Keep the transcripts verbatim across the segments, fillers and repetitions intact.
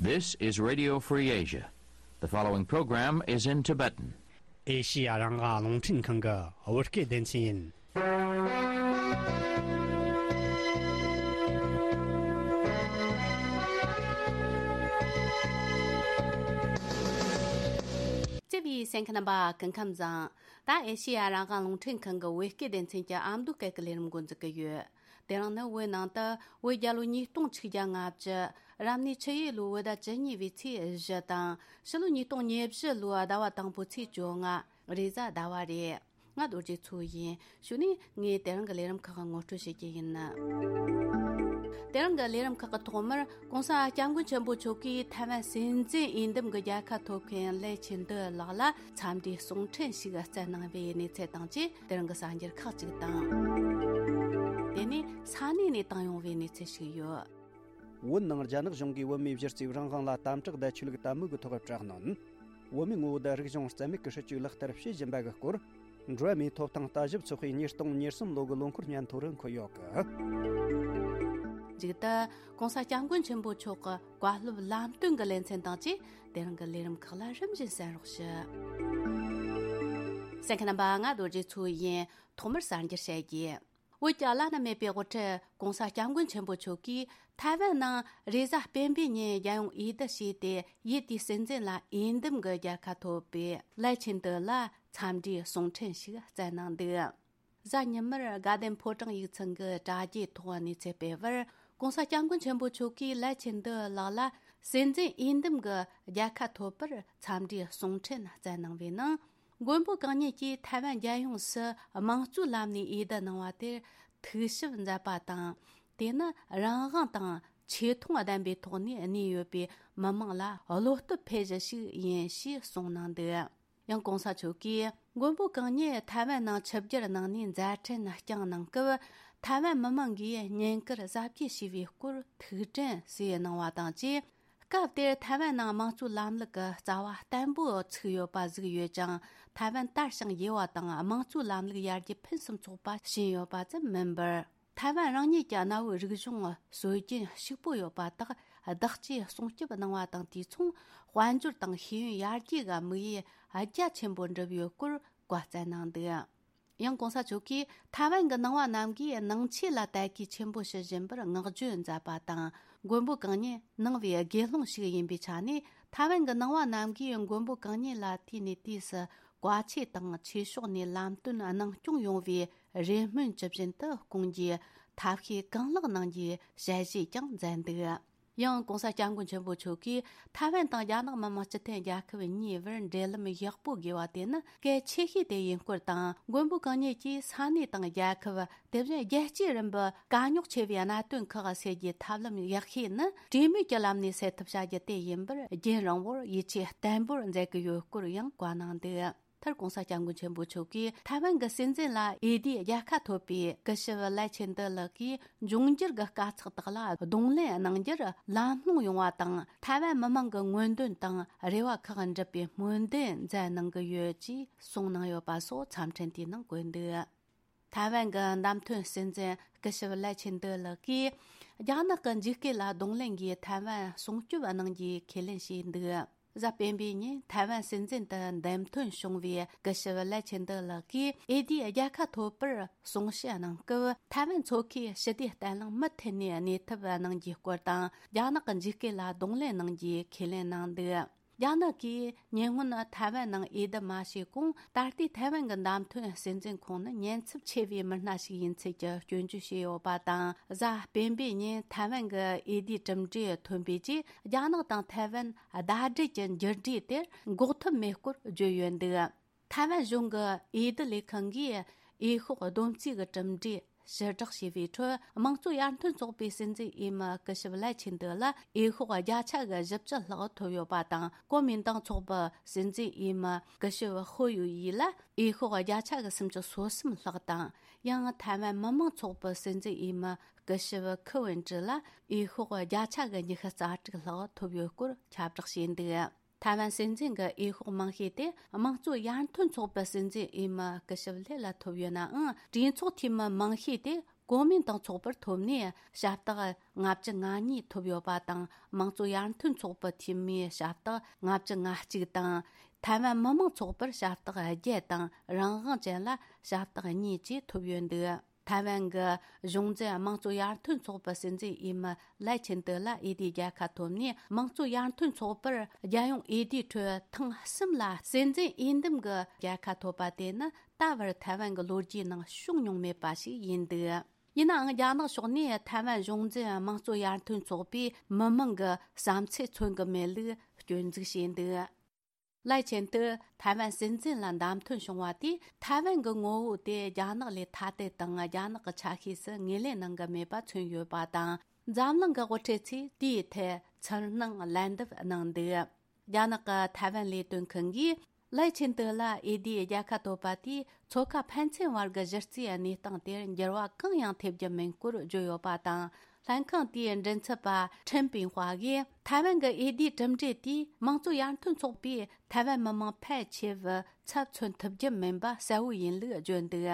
This is Radio Free Asia. The following program is in Tibetan. ཨེ་ཤི་ཡ་རང་དབང་རླུང་འཕྲིན་ཁང་གི་བོད་སྐད་སྡེ་ཚན་ཡིན། བརྩེ་བའི་གསན་མཁན་རྣམ་པ་སྐུ་ཁམས་བཟང་། ད་ཨེ་ཤི་ཡ་རང་དབང་རླུང་འཕྲིན་ཁང་གི་བོད་སྐད་སྡེ་ཚན་གྱི་ཨ་མདོ་སྐད་ཀྱི་ལས་རིམ་འགོ་འཛུགས་ཀྱི་ཡོད། དེ་རིང་ནི་བོད་ནང་དུ་བོད་རྒྱལ་ལོ་ཉིས་སྟོང་ཆིག་བརྒྱ་ལྔ་བཅུ། རབ་གནས་ཆུ་ཡོས་ལོའི་བོད་ཟླ་བཅུ་གཉིས་པའི་ཚེས་བཞི་དང་། ཕྱི་ལོ་ཉིས་སྟོང་ཉེར་བཞི་ལོའི་ཟླ་བ་དང་པོའི་ཚེས་བཅོ་ལྔ། རེས་གཟའ་ཟླ་བ་རེད། ང་རྡོ་རྗེ་མཚོ་ཡིན། གཞུག་ནས་ངས་དེ་རིང་གི་ལས་རིམ་ཁག་ངོ་སྤྲོད་བྱེད་ཀྱི་ཡིན། དེ་རིང་གི་ལས་རིམ་ཁག་གི་ཐོག་མར་༸གོང་ས་༸སྐྱབས་མགོན་ཆེན་པོ་མཆོག་གིས་ཐའེ་ཝན་སྲིད་འཛིན་འོས་འདེམས་ཀྱི་རྒྱལ་ཁ་ཐོབ་མཁན་ལའེ་ཆིན་ཏེ་ལགས་ལ་འཚམས་འདྲིའི་གསུང་འཕྲིན་ཞིག་བསྩལ་གནང་བའི་གནས་ཚུལ་དང་བཅས། དེ་རིང་གི་གསར་འགྱུར་ཁག་ཅིག་དང་། དེ་ནས་ས་གནས་ནས་བཏང་ཡོང་བའི་གནས་ཚུལ་ཞིག་ཡོད། བོད་ནང་རྒྱ་ནག་གཞུང་གིས་བོད་མིའི་གཞི་རྩའི་རང་དབང་ལ་དམ་དྲག་དང་ཆོས་ལུགས་དད་མོས་ཀྱི་ཐོག་དྲག་གནོན། བོད་མིའི་ངོ་བོ་དང་རིག་གཞུང་རྩ་མེད་ཀྱི་སྲིད་བྱུས་ལག་བསྟར་བྱེད་བཞིན་པ་གི་སྐོར། འགྲོ་བ་མིའི་ཐོབ་ཐང་ལྟ་ཞིབ་ཚོགས་པའི་ཉིས་སྟོང་ཉེར་གསུམ་ལོ་གི་ལོ་འཁོར་སྙན་ཐོ་རུ་འཁོད་ཡོད་གི། མཇུག་ཏུ་༸གོང་ས་༸སྐྱབས་མགོན་ཆེན་པོ་མཆོག་གི་བཀའ་སློབ་ལམ་སྟོན་གྱི་ལེ་ཚན་དང་བཅས། དེ་རིང་གི་ལས་རིམ་ཁག་ལ་རིམ་བཞིན་གསན་རོགས་ཞུ། གསན་མཁན་རྣམ་པ། ང་རྡོ་རྗེ་མཚོ་ཡིན། ཐོག་མར་གསར་འགྱུར་བཤད་རྒྱུ། བོད་ཀྱི་བླ་ན་མེད་པའི་དབུ་ཁྲིད་༸གོང་ས་༸སྐྱབས་མགོན་ཆེན་པོ་མཆོག་གིས་ཐའེ་ཝན་ནང་རེས་གཟའ་སྤེན་པའི་ཉིན་རྒྱལ་ཡོངས་འོས་བསྡུ་བྱས་ཏེ། འོས་བསྡུའི་སྲིད་འཛིན་ལ་འོས་འདེམས་ཀྱི་རྒྱལ་ཁ་ཐོབ་པའི་ལའེ་ཆིན་ཏེ་ལ་འཚམས་འདྲིའི་གསུང་འཕྲིན་ཞིག་བསྩལ་གནང་འདུག། གཟའ་ཉི་མར་དགའ་ལྡན་ཕོ་བྲང་ཡིག་ཚང་གི་དྲ་རྒྱའི་ཐོག་གནས་ཚུལ་སྤེལ་བར། ༸གོང་ས་༸སྐྱབས་མགོན་ཆེན་པོ་མཆོག་གིས་ལའེ་ཆིན་ཏེ་ལགས་ལ་སྲིད་འཛིན་འོས་འདེམས་ཀྱི་རྒྱལ་ཁ་ཐོབ་པར་འཚམས་འདྲིའི་གསུང་འཕྲིན་བསྩལ་གནང་བའི་ནང་། མགོན་པོ་གང་ཉིད་ཀྱིས་ཐའེ་ཝན་རྒྱལ་ཡོངས་སུ་དམངས་གཙོའི་ལམ་ནས་འོས་བསྡུ་གནང་བ་དེར་ཐུགས་ཞིབ་མཛད་པ་དང་། དེ་ནི་རང་དབང་དང་ཆེ་མཐོང་ལྡན་པའི་ཐོག་ནས་གནས་ཡོད་པའི་མི་མང་ལ་བློ་སྟོབས་འཕེལ་གཞི་ཞིག་ཡིན་ཞེས་གསུངས་གནང་འདུག། ཡང་༸གོང་ས་མཆོག་གིས་མགོན་པོ་གང་ཉིད་ཐའེ་ཝན་ནང་ཆིབས་བསྒྱུར་གནང་ནས་མཛད་འཕྲིན་བསྐྱངས་གནང་སྐབས། ཐའེ་ཝན་མི་མང་གིས་བསྙེན་བཀུར་གཟབ་རྒྱས་བྱས་པའི་སྐོར་ཐུགས་དྲན་གསོས་གནང་བ་དང་བཅས། སྐབས་དེར་ཐའེ་ཝན་ནང་དམངས་གཙོའི་ལམ་ལུགས་ཀྱི་རྩ་བ་བརྟན་པོ་ཚུགས་ཡོད་པ་གཟིགས་ཡོད་ཅིང་། ཐའེ་ཝན་དར་ཞིང་རྒྱས་པ་དང་དམངས་གཙོའི་ལམ་ལུགས་ཡར་རྒྱས་ཕུན་སུམ་ཚོགས་པ་ཕྱིན་ཡོད་པ་ཙམ་མིན་པར། ཐའེ་ཝན་རང་ཉིད་ཀྱི་གནའ་བོའི་རིག་གཞུང་སྲོལ་རྒྱུན་ཕྱུག་པོ་ཡོད་པ་དག་བདག་གཅེས་སྲུང་སྐྱོབ་གནང་བ་དང་། དུས་མཚུངས་དཔལ་འབྱོར་དང་ཤེས་ཡོན་ཡར་རྒྱས་ཀྱི་དམིགས་ཡུལ་རྒྱ་ཆེན་པོ་འགྲུབ་ཡོད་སྐོར་བཀའ་སྩལ་གནང་འདུག། ཡང་༸གོང་ས་མཆོག་གིས་ཐའེ་ཝན་གྱི་ནང་པ་རྣམས་ཀྱིས་ནང་ཆོས་ལ་དད་གུས་ཆེན་པོ་ཞུ་བཞིན་པར་བསྔགས་བརྗོད་མཛད་པ་དང་། མགོན་པོ་གང་ཉིད་ནང་པའི་དགེ་སློང་ཞིག་ཡིན་པའི་ཆ་ནས། ཐའེ་ཝན་གྱི་ནང་པ་རྣམས་ཀྱིས་མགོན་པོ་གང་ཉིད་ལ་དུས་ནས་དུས་སུ་བཀའ་ཆོས་དང་ཆོས་ཕྱོགས་ནས་ལམ་སྟོན་གནང་སྐྱོང་ཡོང་བའི་རེ་སྨོན་ཇི་བཞིན་དུ་སྐོང་རྒྱུའི་ཐབས་ཤེས་གང་ལེགས་གནང་རྒྱུའི་ཞལ་བཞེས་ཀྱང་མཛད་འདུག། ཡང་༸གོང་ས་༸སྐྱབས་མགོན་ཆེན་པོ་མཆོག་གིས་ཐའེ་ཝན་དང་རྒྱ་ནག་མི་དམངས་སྤྱི་མཐུན་རྒྱལ་ཁབ་གཉིས་བར་འབྲེལ་ལམ་ཡག་པོ་དགོས་པ་དེ་ནི་གལ་ཆེ་ཤོས་དེ་ཡིན་སྐོར་དང་། མགོན་པོ་གང་ཉིད་ཀྱིས་ས་གནས་དང་རྒྱལ་ཁབ། དེ་བཞིན་རྒྱལ་སྤྱིའི་རིམ་པའི་དཀའ་རྙོག་ཆེ་བའི་གནད་དོན་ཁག་སེལ་རྒྱུའི་ཐབས་ལམ་ཡག་ཤོས་ནི། གྲོས་མོལ་གྱི་ལམ་ནས་སེལ་ཐབས་བྱ་རྒྱུ་དེ་ཡིན་པར། རྒྱུན་རིང་བོར་ཡིད་ཆེས་བརྟན་པོར་མཛད་ཀྱི་ཡོད་སྐོར་ཡང་བཀའ་གནང་འདུག། མཐར་༸གོང་ས་༸སྐྱབས་མགོན་ཆེན་པོ་མཆོག་གིས་ཐའེ་ཝན་གྱི་སྲིད་འཛིན་ལ་འོས་བསྡུའི་རྒྱལ་ཁ་ཐོབ་པའི་སྐུ་ཞབས་ལའེ་ཆིན་ཏེ་ལགས་ཀྱིས་འབྱུང་འགྱུར་གྱི་དཀའ་ཚེགས་དག་ལ་གདོང་ལེན་གནང་རྒྱུར་ལམ་ལྷོང་ཡོང་བ་དང་། ཐའེ་ཝན་མི་མང་གི་མངོན་འདོད་དང་རེ་བ་ཁག་འགྲུབ་པའི་སྨོན་འདུན་མཛད་གནང་གི་ཡོད་ཅེས་གསུངས་གནང་ཡོད་པ་སོགས་འཚམས་འཕྲིན་དེའི་ནང་བཀོད་འདུག། ཐའེ་ཝན་གྱི་བདམས་ཐོན་སྲིད་འཛིན་སྐུ་ཞབས་ལའེ་ཆིན་ཏེ་ལགས་ཀྱིས། རྒྱ་ནག་གི་འཇིགས་སྐུལ་ལ་གདོང་ལེན་གྱིས་ཐའེ་ཝན་སྲུང་སྐྱོབ་གནང་རྒྱུའི་ཁས་ལེན་བྱས་འདུག། གཟའ་སྤེན་པའི་ཉིན་ཐའེ་ཝན་སྲིད་འཛིན་དུ་འདེམས་ཐོན་བྱུང་བའི་སྐུ་ཞབས་ལའེ་ཆིན་ཏེ་ལགས་ཀྱིས་འོས་བསྡུའི་རྒྱལ་ཁ་ཐོབ་པར་གསུང་བཤད་གནང་སྐབས། ཐའེ་ཝན་མཚོ་ཁའི་ཞི་བདེ་བརྟན་ལྷིང་མུ་མཐུད་ནས་གནས་ཐབས་གནང་རྒྱུའི་སྐོར་དང་། རྒྱ་ནག་གི་འཇིགས་སྐུལ་ལ་གདོང་ལེན་གནང་རྒྱུའི་ཁས་ལེན་གནང་འདུག། རྒྱ་ནག་གིས་ཉེ་སྔོན་ཐའེ་ཝན་ནང་འོས་བསྡུ་མ་བྱས་གོང་། ད་ལྟའི་ཐའེ་ཝན་གྱི་བདམས་ཐོན་སྲིད་འཛིན་ཁོང་ནི་ཉེན་ཚབས་ཆེ་བའི་མི་སྣ་ཞིག་ཡིན་ཚུལ་གྱི་སྐྱོན་བརྗོད་བྱས་ཡོད་པ་དང་། གཟའ་སྤེན་པའི་ཉིན་ཐའེ་ཝན་གྱི་འོས་བསྡུའི་གྲུབ་འབྲས་ཐོན་པའི་རྗེས། རྒྱ་ནག་དང་ཐའེ་ཝན་ཟླ་སྒྲིལ་གྱི་འགྱུར་འགྲོས་དེར་འགོག་ཐབས་མེད་སྐོར་བརྗོད་ཡོད་འདུག། ཐའེ་ཝན་གཞུང་གི་འོས་བསྡུ་ལས་ཁང་གིས་འོས་ཤོག་བསྡོམས་རྩིས་ཀྱི་གྲུབ་འབྲས་ཕྱིར་བསྒྲགས་བྱས་པའི་ཁྲོད། དམངས་གཙོ་ཡར་ཐོན་ཚོགས་པའི་སྲིད་འཛིན་འོས་མི་སྐུ་ཞབས་ལའེ་ཆིན་ཏེ་ལ་འོས་ཤོག་བརྒྱ་ཆ་གི་བཞི་བཅུ་ལྷག་ཐོབ་ཡོད་པ་དང་། གོ་མིན་ཏང་ཚོགས་པའི་སྲིད་འཛིན་འོས་མི་སྐུ་ཞབས་ཧོ་ཡུ་ཡི་ལ་འོས་ཤོག་བརྒྱ་ཆ་གི་སུམ་ཅུ་སོ་གསུམ་ལྷག་དང་། ཡང་ཐའེ་ཝན་མི་དམངས་ཚོགས་པའི་སྲིད་འཛིན་འོས་མི་སྐུ་ཞབས་ཁི་ཝུན་ཀྲི་ལ་འོས་ཤོག་བརྒྱ་ཆ་གི་ཉི་ཤུ་རྩ་དྲུག་ལྷག་ཐོབ་ཡོད་སྐོར་ཁྱབ་བསྒྲགས་བྱས་འདུག། ཐའེ་ཝན་སྲིད་འཛིན་གྱི་འོས་ཤོག་མང་ཤོས་དེ་དམངས་གཙོ་ཡར་ཐོན་ཚོགས་པའི་སྲིད་འཛིན་འོས་མི་སྐུ་ཞབས་ལེ་ལ་ཐོབ་ཡོད་ནའང་། གྲོས་ཚོགས་འཐུས་མི་མང་ཤོས་དེ་ གོ་མིན་ཏང་ཚོགས་པར་ཐོབ་ནས་ཞབས་སྟེགས་ལྔ་བཅུ་ང་གཉིས་ཐོབ་ཡོད་པ་དང་། དམངས་གཙོ་ཡར་ཐོན་ཚོགས་པའི་འཐུས་མིའི་ཞབས་སྟེགས་ལྔ་བཅུ་ང་གཅིག་དང་། ཐའེ་ཝན་མི་དམངས་ཚོགས་པར་ཞབས་སྟེགས་བརྒྱད་དང་། རང་དབང་ཅན་ལ་ཞབས་སྟེགས་གཉིས་བཅས་ཐོབ་ཡོད་འདུག་ཐའེ་ཝན་གྱི་གཞུང་འཛིན་དམངས་གཙོ་ཡར་ཐོན་ཚོགས་པའི་སྲིད་འཛིན་འོས་མི་ལའེ་ཆིན་ཏེ་ལ་འོས་བསྡུའི་རྒྱལ་ཁ་ཐོབ་ནས། དམངས་གཙོ་ཡར་ཐོན་ཚོགས་པར་རྒྱལ་ཡོངས་འོས་བསྡུའི་ཁྲོད་ཐེངས་གསུམ་ལ་སྲིད་འཛིན་འོས་འདེམས་ཀྱི་རྒྱལ་ཁ་ཐོབ་པ་དེ་ནི་ད་བར་ཐའེ་ཝན་གྱི་ལོ་རྒྱུས་ནང་བྱུང་མྱོང་མེད་པ་ཞིག་ཡིན་འདུག་ཡིན་ནའང་། རྒྱ་ནག་ཕྱོགས་ནས་ཐའེ་ཝན་གཞུང་འཛིན་དམངས་གཙོ་ཡར་ཐོན་ཚོགས་པའི་མི་མང་གི་བསམ་ཚུལ་མཚོན་གྱི་མེད་ལུགས་སྐྱོན་འཛུགས་བྱས་འདུག་ལའེ་ཆིན་ཏེ་ཐའེ་ཝན་སྲིད་འཛིན་ལ་བདམས་ཐོན་བྱུང་བ་དེས། ཐའེ་ཝན་གྱི་ངོ་བོ་དེ་རྒྱ་ནག་ལས་ཐ་དད་དང་། རྒྱ་ནག་གི་ཆ་ཤས་སུ་ངོས་ལེན་གནང་གི་མེད་པ་མཚོན་ཡོད་པ་དང་། འཛམ་གླིང་གི་དབུ་ཁྲིད་ཚོས་དེའི་ཐད་ཚུར་སྣང་ལན་འདེབས་གནང་འདུག་རྒྱ་ནག་གི་ཐའེ་ཝན་ལས་དོན་ཁང་གིས་ལའེ་ཆིན་ཏེ་ལ་འོས་བསྡུའི་རྒྱལ་ཁ་ཐོབ་པ་དེས། མཚོ་ཁ་ཕན་ཚུན་བར་གྱི་གཞི་རྩའི་གནས་སྟངས་དེར་འགྱུར་བ་གང་ཡང་ཐེབས་རྒྱུ་མིན་སྐོར་བརྗོད་ཡོད་པ་དང་། ལྷན་ཁང་དེའི་མགྲིན་ཚབ་པ་ཁྲེན་པིང་ཧྭ་གིས། ཐའེ་ཝན་གྱི་འོས་བསྡུའི་གྲུབ་འབྲས་དེས་དམངས་གཙོ་ཡར་ཐོན་ཚོགས་པས་ཐའེ་ཝན་མི་མང་ཕལ་ཆེ་བའི་ཚབ་མཚོན་ཐུབ་རྒྱུ་མིན་པ་གསལ་བོ་ཡིན་ལུགས་བརྗོད་འདུག་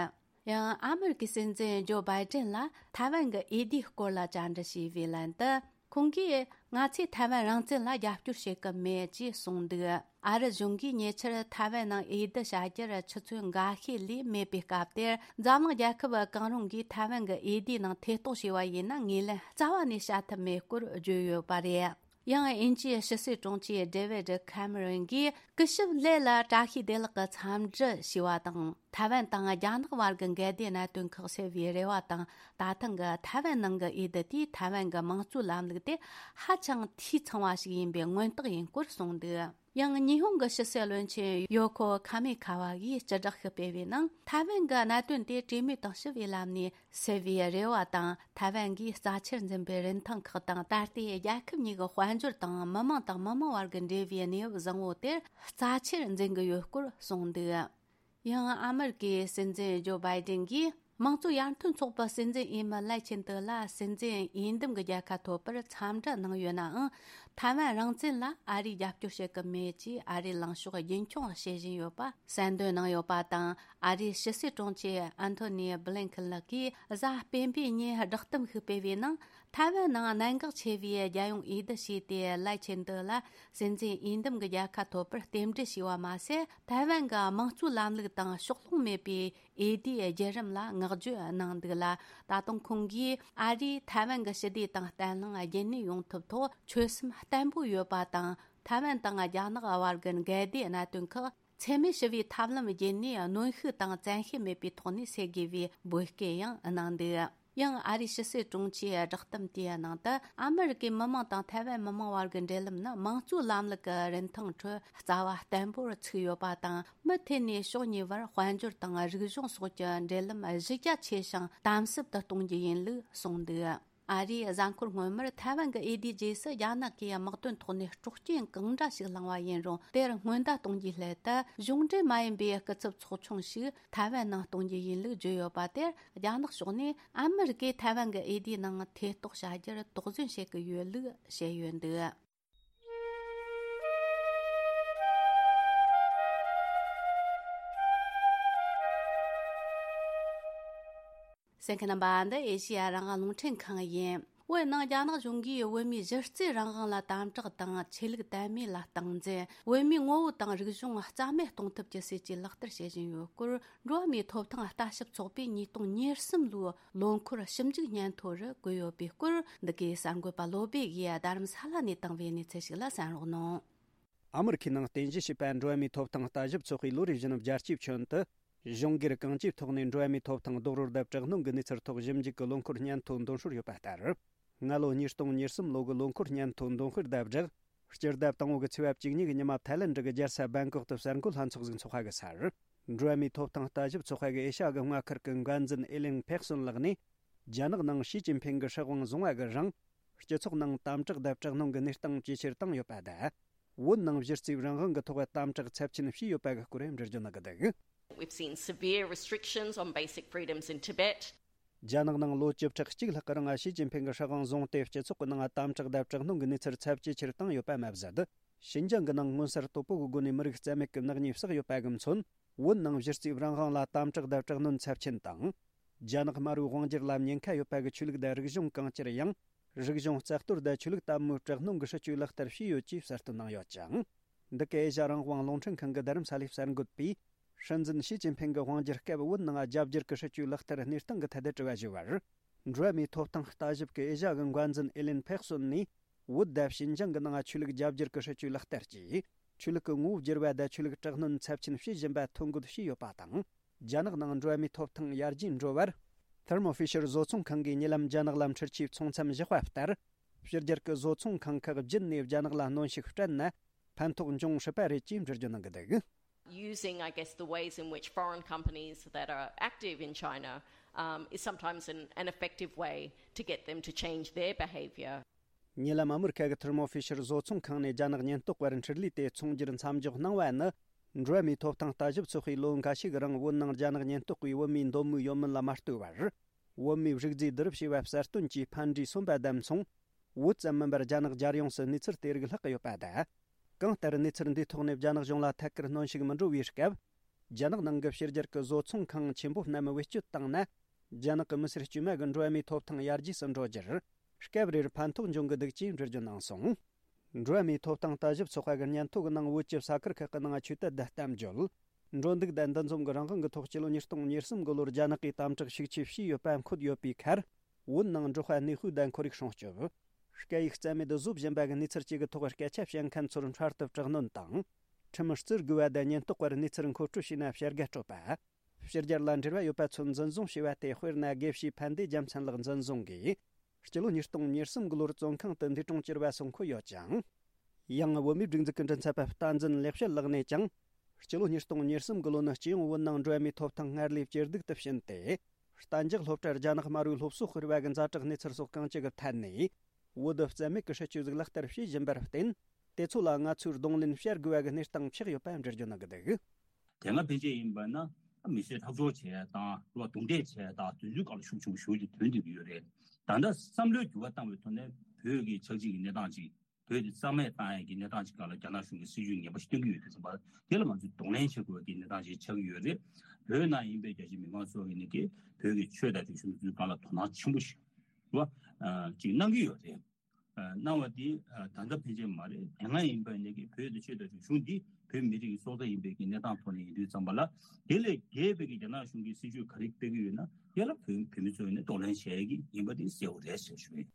ཡང་ཨ་མེ་རི་ཀའི་སྲིད་འཛིན་ཇོ་བྷའི་ཏིན་ལ་ཐའེ་ཝན་གྱི་འོས་བསྡུའི་སྐོར་ལ་བཅར་འདྲི་བྱས་པའི་ལན་དུ། ཁོང་གིས། ང་ཚོས་ཐའེ་ཝན་རང་བཙན་ལ་རྒྱབ་སྐྱོར་བྱེད་ཀྱི་མེད་ཅེས་གསུངས་འདུག་ཨ་རི་གཞུང་གིས་ཉེ་ཆར་ཐའེ་ཝན་ནང་འོས་བསྡུ་བྱ་རྒྱུར་ཆུ་ཚོད་འགའ་ཤས་ལས་མེད་པའི་སྐབས་དེར། འཛམ་གླིང་རྒྱལ་ཁབ་གང་རུང་གིས་ཐའེ་ཝན་གྱི་འོས་བསྡུའི་ནང་ཐེ་གཏོགས་བྱས་པ་ཡིན་ན། ངོས་ལེན་རྩ་བ་ནས་བྱ་ཐབས་མེད་སྐོར་བརྗོད་ཡོད་པ་རེད། ཡང་། དབྱིན་ཇིའི་ཕྱི་སྲིད་དྲུང་ཆེ་ཌེ་ཝིད་ཁ་མེ་རོན་གྱིས། སྐུ་ཞབས་ལེ་ལ་བཀྲ་ཤིས་བདེ་ལེགས་ཀྱི་འཚམས་འདྲི་ཞུས་པ་དང་། ཐའེ་ཝན་དང་རྒྱ་ནག་བར་གྱི་འགལ་ཟླའི་གནད་དོན་ཁག་སེལ་བའི་རེ་བ་དང་། ད་ཐེངས་ཀྱི་ཐའེ་ཝན་ནང་གི་འོས་བསྡུ་དེས་ཐའེ་ཝན་གྱི་དམངས་གཙོའི་ལམ་ལུགས་དེ་ཧ་ཅང་འཐུས་ཚང་བ་ཞིག་ཡིན་པའི་མངོན་རྟགས་ཡིན་སྐོར་གསུངས་འདུག་ཡང་། ཉི་ཧོང་གི་ཕྱི་སྲིད་བློན་ཆེན་ཡོ་ཁོ་ཁ་མི་ཁ་བ་ཡིས་སྤྱི་བསྒྲགས་ཤིག་སྤེལ་བའི་ནང་། ཐའེ་ཝན་གྱི་གནད་དོན་དེ་གྲོས་མོལ་དང་ཞི་བའི་ལམ་ནས་སེལ་བའི་རེ་བ་དང་། ཐའེ་ཝན་གྱིས་རྩ་ཆེར་འཛིན་པའི་རིན་ཐང་ཁག་དང་། ད་ལྟའི་རྒྱལ་ཁབ་གཉིས་ཀྱི་དཔལ་འབྱོར་དང་། མི་དམངས་དང་མི་དམངས་བར་གྱི་འབྲེལ་བའི་གནས་བབ་བཟང་བོ་དེར་རྩ་ཆེར་འཛིན་གྱི་ཡོད་སྐོར་གསུངས་འདུག་ཡང་། ཨ་མེ་རི་ཀའི་སྲིད་འཛིན་ཇོ་བྷའི་ཏིན་གྱིས། དམངས་གཙོ་ཡར་ཐོན་ཚོགས་པའི་སྲིད་འཛིན་འོས་མི་ལའེ་ཆིན་ཏེ་ལ་སྲིད་འཛིན་འོས་འདེམས་ཀྱི་རྒྱལ་ཁ་ཐོབ་པར་འཚམས་འདྲི་གནང་ཡོད་ནའང་། ཐའེ་ཝན་རང་བཙན་ལ་ཨ་རིས་རྒྱབ་སྐྱོར་བྱེད་ཀྱི་མེད་ཅེས་ཨ་རིའི་ལངས་ཕྱོགས་རྒྱུན་འཁྱོངས་བྱེད་བཞིན་ཡོད་པ་གསལ་འདོན་གནང་ཡོད་པ་དང་། ཨ་རིའི་ཕྱི་སྲིད་དྲུང་ཆེ་ཨན་ཐོ་ནི་བྷི་ལིན་ཁིན་ལགས་ཀྱིས་གཟའ་སྤེན་པའི་ཉིན་བསྒྲགས་གཏམ་ཞིག་སྤེལ་བའི་ནང་། ཐའེ་ཝན་ནང་གནད་འགག་ཆེ་བའི་རྒྱལ་ཡོངས་འོས་བསྡུ་བྱས་ཏེ། ལའེ་ཆིན་ཏེ་ལ་སྲིད་འཛིན་འོས་འདེམས་ཀྱི་རྒྱལ་ཁ་ཐོབ་པར་རྟེན་འབྲེལ་ཞུས་པ་མ་ཟད། ཐའེ་ཝན་གྱི་དམངས་གཙོའི་ལམ་ལུགས་དང་ཕྱོགས་ལྷུང་མེད་པའི་འོས་བསྡུའི་བརྒྱུད་རིམ་ལ་བསྔགས་བརྗོད་གནང་འདུག་ལ། ད་དུང་ཁོང་གིས་ཨ་རིས་ཐའེ་ཝན་གྱི་ཞི་བདེ་དང་བརྟན་ལྷིང་རྒྱུན་གནས་ཡོང་ཐབས་ཐོག་ཆོད་སེམས་བརྟན་པོ་ཡོད་པ་དང་། ཐའེ་ཝན་དང་རྒྱ་ནག་བར་གྱི་འགལ་ཟླའི་གནད་དོན་ཁག་འཚེ་མེད་ཞི་བའི་ཐབས་ལམ་བརྒྱུད་ནས་གནོན་ཤུགས་དང་བཙན་ཤེད་མེད་པའི་ཐོག་ནས་སེལ་དགོས་པའི་འབོད་སྐུལ་ཡང་གནང་འདུག་ཡང་ཨ་རིའི་ཕྱི་སྲིད་དྲུང་ཆེའི་བསྒྲགས་གཏམ་དེའི་ནང་དུ། ཨ་མེ་རི་ཀའི་མི་དམངས་དང་ཐའེ་ཝན་མི་དམངས་བར་གྱི་འབྲེལ་ལམ་ནི་དམངས་གཙོའི་ལམ་ལུགས་ཀྱི་རིན་ཐང་ཁྲོད་རྩ་བ་བརྟན་པོར་ཚུགས་ཡོད་པ་དང་། མུ་མཐུད་ནས་ཕྱོགས་གཉིས་བར་དཔལ་འབྱོར་དང་རིག་གཞུང་སོགས་ཀྱི་འབྲེལ་ལམ་གཞི་རྒྱ་ཆེ་ཞིང་དམ་ཟབ་ཏུ་གཏོང་རྒྱུ་ཡིན་ལུགས་གསུངས་འདུག་ཨ་རིའི་གཟའ་འཁོར་སྔོན་མར་ཐའེ་ཝན་གྱི་འོས་བསྡུའི་རྗེས་སུ། རྒྱ་ནག་གིས་དམག་དོན་ཐོག་ནས་སྲོག་སྐྱོན་གང་འདྲ་ཞིག་བསླངས་པ་ཡིན་རུང་། དེར་སྔོན་བརྡ་གཏོང་རྒྱུའི་སླད་དུ། གཞུང་འབྲེལ་མ་ཡིན་པའི་སྐུ་ཚབ་ཚོགས་ཆུང་ཞིག་ཐའེ་ཝན་ནང་གཏོང་རྒྱུ་ཡིན་ལུགས་བརྗོད་ཡོད་པ་དེར། རྒྱ་ནག་ཕྱོགས་ནས་ཨ་མི་རི་ཀས་ཐའེ་ཝན་གྱི་འོས་བསྡུའི་ནང་ཐེ་གཏོགས་བྱ་རྒྱུར་དོགས་ཟོན་བྱེད་ཀྱི་ཡོད་ལུགས་བཤད་ཡོད་འདུག་གསན་མཁན་རྣམ་པ། འདི་ཨེ་ཤེ་ཡ་རང་དབང་རླུང་འཕྲིན་ཁང་ཡིན། བོད་ནང་རྒྱ་ནག་གཞུང་གིས་བོད་མིའི་གཞི་རྩའི་རང་དབང་ལ་དམ་དྲག་དང་། ཆོས་ལུགས་དད་མོས་ལ་སྟངས་འཛིན། བོད་མིའི་ངོ་བོ་དང་རིག་གཞུང་རྩ་མེད་གཏོང་ཐབས་ཀྱི་སྲིད་ཇུས་ལག་བསྟར་བྱེད་བཞིན་ཡོད་སྐོར། འགྲོ་བ་མིའི་ཐོབ་ཐང་ལྟ་ཞིབ་ཚོགས་པས་ཉིས་སྟོང་ཉེར་གསུམ་ལོའི་ལོ་འཁོར་ཞིབ་འཇུག་སྙན་ཐོ་རུ་བཀོད་ཡོད་པའི་སྐོར། འདི་གའི་གསར་འགོད་པ་བློ་བྷེ་ཡིས་རྡ་རམ་ས་ལ་ནས་བཏང་བའི་གནས་ཚུལ་ཞིག་ལ་གསན་རོགས་གནང་། ཨ་མི་རི་ཁའི་ནང་རྟེན་གཞི་བྱས་པའི་འགྲོ་བ་མིའི་ཐོབ་ཐང་ལྟ་ཞིབ་ཚོགས་པས་ལོ་རེ་བཞིན་བརྒྱ་སྐྱེད་ཁྱོན་དུ། གཞུང་སྒེར་གང་ཅིའི་ཐོག་ནས་འགྲོ་བ་མིའི་ཐོབ་ཐང་རྡོག་རོལ་དང་དྲག་གནོན་གྱི་གནས་ཚུལ་ཐོག་ཞིབ་འཇུག་གི་ལོ་འཁོར་སྙན་ཐོ་འདོན་སྲོལ་ཡོད་པ་ལྟར། སྔ་ལོ་ཉིས་སྟོང་ཉེར་གསུམ་ལོ་གི་ལོ་འཁོར་སྙན་ཐོ་འདོན་སྤེལ་དང་སྦྲགས། སྤྱི་ཟླ་དང་པོ་གི་ཚེས་པ་བཅུ་གཉིས་ཀྱི་ཉི་མ་ཐའི་ལེན་ཌི་གི་རྒྱལ་ས་བེང་ཀོག་ཏུ་གསར་འགོད་ལྷན་ཚོགས་ཤིག་འཚོགས་པ་གི་སར། འགྲོ་བ་མིའི་ཐོབ་ཐང་ལྟ་ཞིབ་ཚོགས་པ་གི་ཨེ་ཤ་ཡ་གི་མངའ་ཁུལ་གྱི་འགན་འཛིན་ཨེ་ལིན་ཕེག་སོན་ལགས་ནས། རྒྱ་ནག་ནང་ཞི་ཅིན་ཕིང་གི་སྲིད་དབང་བཟུང་བ་གི་རིང་། སྤྱི་ཚོགས་ནང་དམ་དྲག་དང་དྲག་གནོན་གྱི་གནས་སྟངས་ཇེ་ཆེར་བཏང་ཡོད་པ་དང་། བོད་ནང་གཞི་རྩའི་རང་དབང་གི་ཐོག་དམ་དྲག་ཚབས་ཆེན་བྱས་ཡོད་པ་གི་སྐོར་འགྲེལ་བརྗོད་གནང་གི་འདུག We've seen severe restrictions on basic freedoms in Tibet. རྒྱ་ནག་ནང་ལོ་བཅུ་ཕྲག་གཅིག་ལྷག་གི་རིང་ཞི་ཅིན་ཕིང་གི་སྲིད་དབང་བཟུང་སྟེ། སྤྱི་ཚོགས་ཀྱི་ནང་དམ་དྲག་དང་དྲག་གནོན་གྱི་གནས་ཚུལ་ཚབས་ཇེ་ཆེར་བཏང་ཡོད་པ་མ་ཟད། ཤིན་ཅང་གི་ནང་མངོན་གསལ་དོད་པོ་གི་སྒོ་ནས་མི་རིགས་རྩ་མེད་ཀྱི་ནག་ཉེས་བསགས་ཡོད་པ་གི་མཚོན། བོད་ནང་གཞི་རྩའི་རང་དབང་ལ་དམ་དྲག་དང་དྲག་གནོན་ཚབས་ཆེན་དང་། རྒྱ་ནག་དམར་པོའི་དབང་སྒྱུར་ལ་ཉེན་ཁ་ཡོད་པ་གི་ཆོས་ལུགས་དང་རིག་གཞུང་གང་ཅིར་ཡང་། རིག་གཞུང་རྩ་གཏོར་དང་ཆོས་ལུགས་དམ་པོའི་དྲག་གནོན་གྱི་སྲིད་ཇུས་ལག་བསྟར་བྱས་ཡོད་ཅེས་གསལ་སྟོན་གནང་ཡོད་ཅིང་། འདི་གའི་ཨེ་ཤ་རང་དབང་རླུང་འཕྲིན་ཁང་གི་རྡ་རམ་ས་ལའི་གསར་འགོད་པས། སྲིད་འཛིན་ཞི་ཅིན་ཕིང་གི་དབང་སྒྱུར་སྐབས་བོད་ནང་རྒྱ་བསྒྱུར་གྱི་སྲིད་ཇུས་ལག་བསྟར་གནས་སྟངས་ཀྱི་ཐད་དུ་དྲི་བ་ཞུས་པར། འགྲོ་བ་མིའི་ཐོབ་ཐང་ལྟ་ཞིབ་ཀྱི་ཨེ་ཤ་གི་འགོ་འཛིན་ཨེ་ལིན་ཕེག་སོན་ནས། བོད་དང་ཞིན་ཅང་གི་ནང་ཆོས་ལུགས་རྒྱ་བསྒྱུར་གྱི་སྲིད་ཇུས་ལག་བསྟར་གྱིས། ཆོས་ལུགས་ཀྱི་ངོ་བོ་བསྒྱུར་བ་དང་ཆོས་ལུགས་དྲག་གནོན་ཚབས་ཆེན་བྱེད་བཞིན་པ་ཐོ་འགོད་བྱས་ཡོད་པ་དང་། རྒྱ་ནག་ནང་འགྲོ་བ་མིའི་ཐོབ་ཐང་ཡར་རྒྱས་འགྲོ་བར། Thermo Fisher་བཟོ་ཚོང་ཁང་གིས་ཉེ་ལམ་རྒྱ་ནག་ལ་འཕྲུལ་ཆས་ཚོང་མཚམས་བཞག་པ་ལྟར། ཕྱི་རྒྱལ་གྱི་བཟོ་ཚོང་ཁང་ཁག་བརྒྱུད་ནས་རྒྱ་ནག་ལ་གནོན་ཤུགས་སྤྲད་ན། ཕན་ཐོགས་འབྱུང་སྲིད་པ་རེད་ཅེས་འགྲེལ་བརྗོད་གནང་གི་འདུག། Using, I guess, the ways in which foreign companies that are active in China, um, is sometimes an, an effective way to get them to change their behaviour. ཉེ་ལམ་ཨ་མི་རི་ཁ་གི་Thermo Fisher་བཟོ་ཚོང་ཁང་ནས་རྒྱ་ནག་ཉེན་རྟོག་པར་འཕྲུལ་ལས་དེ་ཚོང་སྒྱུར་མཚམས་འཇོག་གནང་བ་ནི། འགྲོ་བ་མིའི་ཐོབ་ཐང་ལྟ་ཞིབ་ཚོགས་པས་ལོ་འགའ་ཤས་ཀྱི་རིང་བོད་ནང་རྒྱ་ནག་ཉེན་རྟོག་པས་བོད་མིའི་འདོད་མོས་ཡོད་མིན་ལ་མ་ལྟོས་པར། བོད་མིའི་རིག་རྫས་བསྡུ་རུབ་བྱས་པ་གསལ་སྟོན་གྱིས་ཕན་འབྲས་སོན་པ་དང་མཚུངས། བོད་ཙམ་མིན་པར་རྒྱ་ནག་རྒྱལ་ཡོངས་སུ་གནས་ཚུལ་དེ་རིགས་ལྷག་གི་ཡོད་པ་དང་། གང་ལྟར་གནས་ཚུལ་འདིའི་ཐོག་ནས་རྒྱ་ནག་གཞུང་ལ་ཐད་ཀར་གནོན་ཤུགས་མི་འགྲོ་བའི་སྐབས། རྒྱ་ནག་ནང་གི་ཕྱི་རྒྱལ་གྱི་བཟོ་ཚོང་ཁང་ཆེན་པོ་རྣམས་བེད་སྤྱོད་བཏང་ན། རྒྱ་ནག་གི་མི་སེར་དཀྱུས་མ་གི་འགྲོ་བ་མིའི་ཐོབ་ཐང་ཡར་རྒྱས་སུ་འགྲོ་རྒྱུར། སྐབས་རེར་ཕན་ཐོགས་འབྱུང་གི་འདུག་ཅེས་འགྲེལ་བརྗོད་གནང་སོང་། འགྲོ་བ་མིའི་ཐོབ་ཐང་ལྟ་ཞིབ་ཚོགས་པ་གི་སྙན་ཐོ་གི་ནང་བོད་ཀྱི་ས་ཁུལ་ཁག་གི་ནང་ཆོས་དད་དང་གཏམ་བརྗོད། འགྲོ་འདུག་དང་འདུ་འཛོམས་ཀྱི་རང་དབང་གི་ཐོག་སྤྱི་ལོ་ཉིས་སྟོང་ཉེར་གསུམ་གི་ལོར་རྒྱ་ནག་གིས་དམ་དྲག་ཤུགས་ཆེ་བྱས་ཡོད་པ་འཁོད་ཡོད་པའི་ཁར། བོད་ནང་འབྲོག་པ་གནས་སྤོས་དང་ཁོར་ཡུག་སྲུང་སྐྱོབ། སྐད་ཡིག་རྩ་མེད་བཟོ་བཞིན་པ་གི་གནས་ཚུལ་བཅས་ཀྱི་ཐོག་སྐད་ཆ་བཤད་མཁན་ཚོར་འཕྲལ་དུ་དྲག་གནོན་དང་། ཁྲིམས་བརྩི་དགོས་པ་དང་ཉེན་རྟོག་པར་གནས་ཚུལ་མཁོ་སྤྲོད་བྱས་ན་བྱ་དགའ་སྤྲོད་པ། ཕྱི་རྒྱལ་ལ་འབྲེལ་བ་ཡོད་པ་ཚོ་འཛིན་བཟུང་བྱས་པ་སྟེ། དཔེར་ན། དགེ་བཤེས་ཕན་བདེ་རྒྱལ་མཚན་ལགས་འཛིན་བཟུང་གིས། སྤྱི་ལོ་ཉིས་སྟོང་ཉེར་གསུམ་གི་ལོར་བཙོན་ཁང་དུ་འདས་གྲོངས་གྱུར་བ་སོགས་འཁོད་ཡོད་ཅིང་། ཡང་། བོད་མིའི་སྒྲིག་འཛུགས་ཀྱི་མགྲིན་ཚབ་པ་བསྟན་འཛིན་ལེགས་བཤད་ལགས་ནས་ཀྱང་། སྤྱི་ལོ་ཉིས་སྟོང་ཉེར་གསུམ་གི་ལོ་ནི་སྤྱི་ཡོངས་བོད་ནང་འགྲོ་བ་མིའི་ཐོབ་ཐང་སྔར་ལས་ཇེ་སྡུག་ཏུ་ཕྱིན་ཏེ། གཏན་འཇགས་སློབ་གྲྭར་རྒྱ་ནག་དམར་པོའི་སློབ་གསོ་སྤེལ་བ་གི་ཛ་དྲག་གནས་ཚུལ་སོགས་གང་ཅི་གི་ཐད་ནས། བོད་དུ་རྩ་མེད་ཀྱི་སྲིད་ཇུས་ཟིག་ལག་བསྟར་བྱེད་བཞིན་པར་བརྟེན། དེ་ཚོ་ལ་ང་ཚོས་གདོང་ལེན་བྱ་དགོས་པ་གི་གནས་སྟངས་ཆགས་ཡོད་པ་འགྲེལ་བརྗོད་གནང་གི་འདུག། དེ་སྔ་ཕན་ཆད་ཡིན་པ་ན། མི་སེར་ཐག་གཅོད་བྱས་དང་། རྡུང་རྡེག་བྱས་དང་། དེ་ཚོའི་སྐབས་ལ་ཤུགས་ཆེན་པོ་ཞེ་པོ་ཅིག་ཐོན་བསྡད་ཀྱི་ཡོད་རེད། ད་ལྟ་བསམ་བློའི་འགྱུར་བ་བཏང་བའི་ཐོག་ནས། བོད་ཀྱི་ཆགས་འཇིག་གི་གནས་སྟངས་ཅིག་བོད་དེ་རྩ་མེད་བཏང་ཡས་ཀྱི་གནས་སྟངས་ཅིག་སྒང་ལ་རྒྱ་ནག་གཞུང་གིས་སྲིད་ཇུས་ངན་པ་ཞིག་བཏོན་གྱི་ཡོད་དུས་ཙམ་པ། དེ་ལ་ང་ཚོས་གདོང་ལེན་བྱེད་དགོས་པའི་གི་གནས་སྟངས་ཅིག་ཆགས་ཀྱི་ཡོད་རེད། བོད་ནང་ཡིན་པའི་རྒྱ་ཆེ་མི་མང་ཚོ་གིས་ནི་གི་བོད་ཀྱི་ཆོས་དང་རིག་གཞུང་དེ་ཚོའི་སྒང་ལ་དོ་སྣང་ཆེན་པོ་ཞིག་རེད་བ། ཅིག་གནང་གི་ཡོད་རེད། གནང་བ་དེ་ད་ལྟ་ཕན་ཆད་མ་རེད། དེ་སྔ་ཡིན་པ་ནི་གི་བོད་དེ་ཆོས་དང་རིག་གཞུང་འདི་བོད་མི་རིགས་ཀྱི་སྲོག་རྩ་ཡིན་པའི་གི་གནས་སྟངས་ཐོག་ནས་ཡིན་དུས་ཙམ་པ་ལ། དེ་ལས་བརྒལ་བའི་གི་རྒྱ་ནག་གཞུང་གིས་སྲིད་ཇུས་ག་རེ་སྤེལ་གི་ཡོད་ན། དེ་ལ་བོད་བོད་མི་ཚོས་ནི་གདོང་ལེན་བྱེད་ཡས་ཀྱི་ཡིན་པ་དེ་གསལ་བོ་རེད་ཟེར་ཞུ་ཡིན།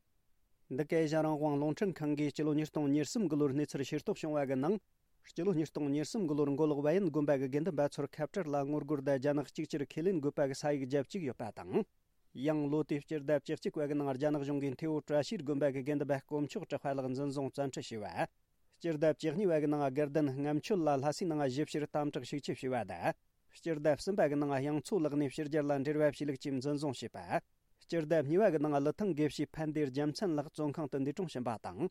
འདི་གའི་ཨེ་ཤ་རང་དབང་རླུང་འཕྲིན་ཁང་གིས་སྤྱི་ལོ་ཉིས་སྟོང་ཉེར་གསུམ་གི་ལོར་གནས་ཚུལ་ཤེས་རྟོགས་བྱུང་བ་གི་ནང་། སྤྱི་ལོ་ཉིས་སྟོང་ཉེར་གསུམ་གི་ལོར་མགོ་ལོག་བལ་ཡུལ་དགོན་པ་གི་དགེ་འདུན་པ་ཚོར་ཁ་བྲལ་ལ་ངོ་རྒོལ་དང་རྒྱ་ནག་གཅིག་གྱུར་ཁས་ལེན་དགོས་པ་གི་ས་ཡིག་བརྒྱབ་བཅུག་ཡོད་པ་དང་། ཡང་ལོ་དེའི་སྤྱི་ཟླ་བཅུ་གཅིག་པ་གི་ནང་རྒྱ་ནག་གཞུང་གིས་ཐེ་བོ་བཀྲ་ཤིས་དགོན་པ་གི་དགེ་འདུན་པ་དཀོན་མཆོག་གྲགས་པ་ལགས་འཛིན་བཟུང་བཙན་ཁྲིད་བྱས་པ། སྤྱི་ཟླ་བཅུ་གཉིས་པ་གི་ནང་དགེ་ལྡན་རྔམ་ཆོད་ལ་ལྷ་སའི་ནང་ཞིབ་བཤེར་དམ་དྲག་ཤུགས་ཆེ་བྱས་པ་དང་། སྤྱི་ཟླ་གསུམ་པ་གི་ནང་དབྱངས་མཚོ་ལགས་ནས་ཕྱི་རྒྱལ་ལ་འབྲེལ་བ་བྱས་ལུགས་ཀྱིས་འཛིན་བཟུང་བྱས་པ། སྤྱི་ཟླ་གཉིས་པ་གི་ནང་ཀླུ་ཐང་དགེ་བཤེས་ཕན་བདེ་རྒྱལ་མཚན་ལགས་བཙོན་ཁང་དུ་འདས་གྲོངས་ཕྱིན་པ་དང་།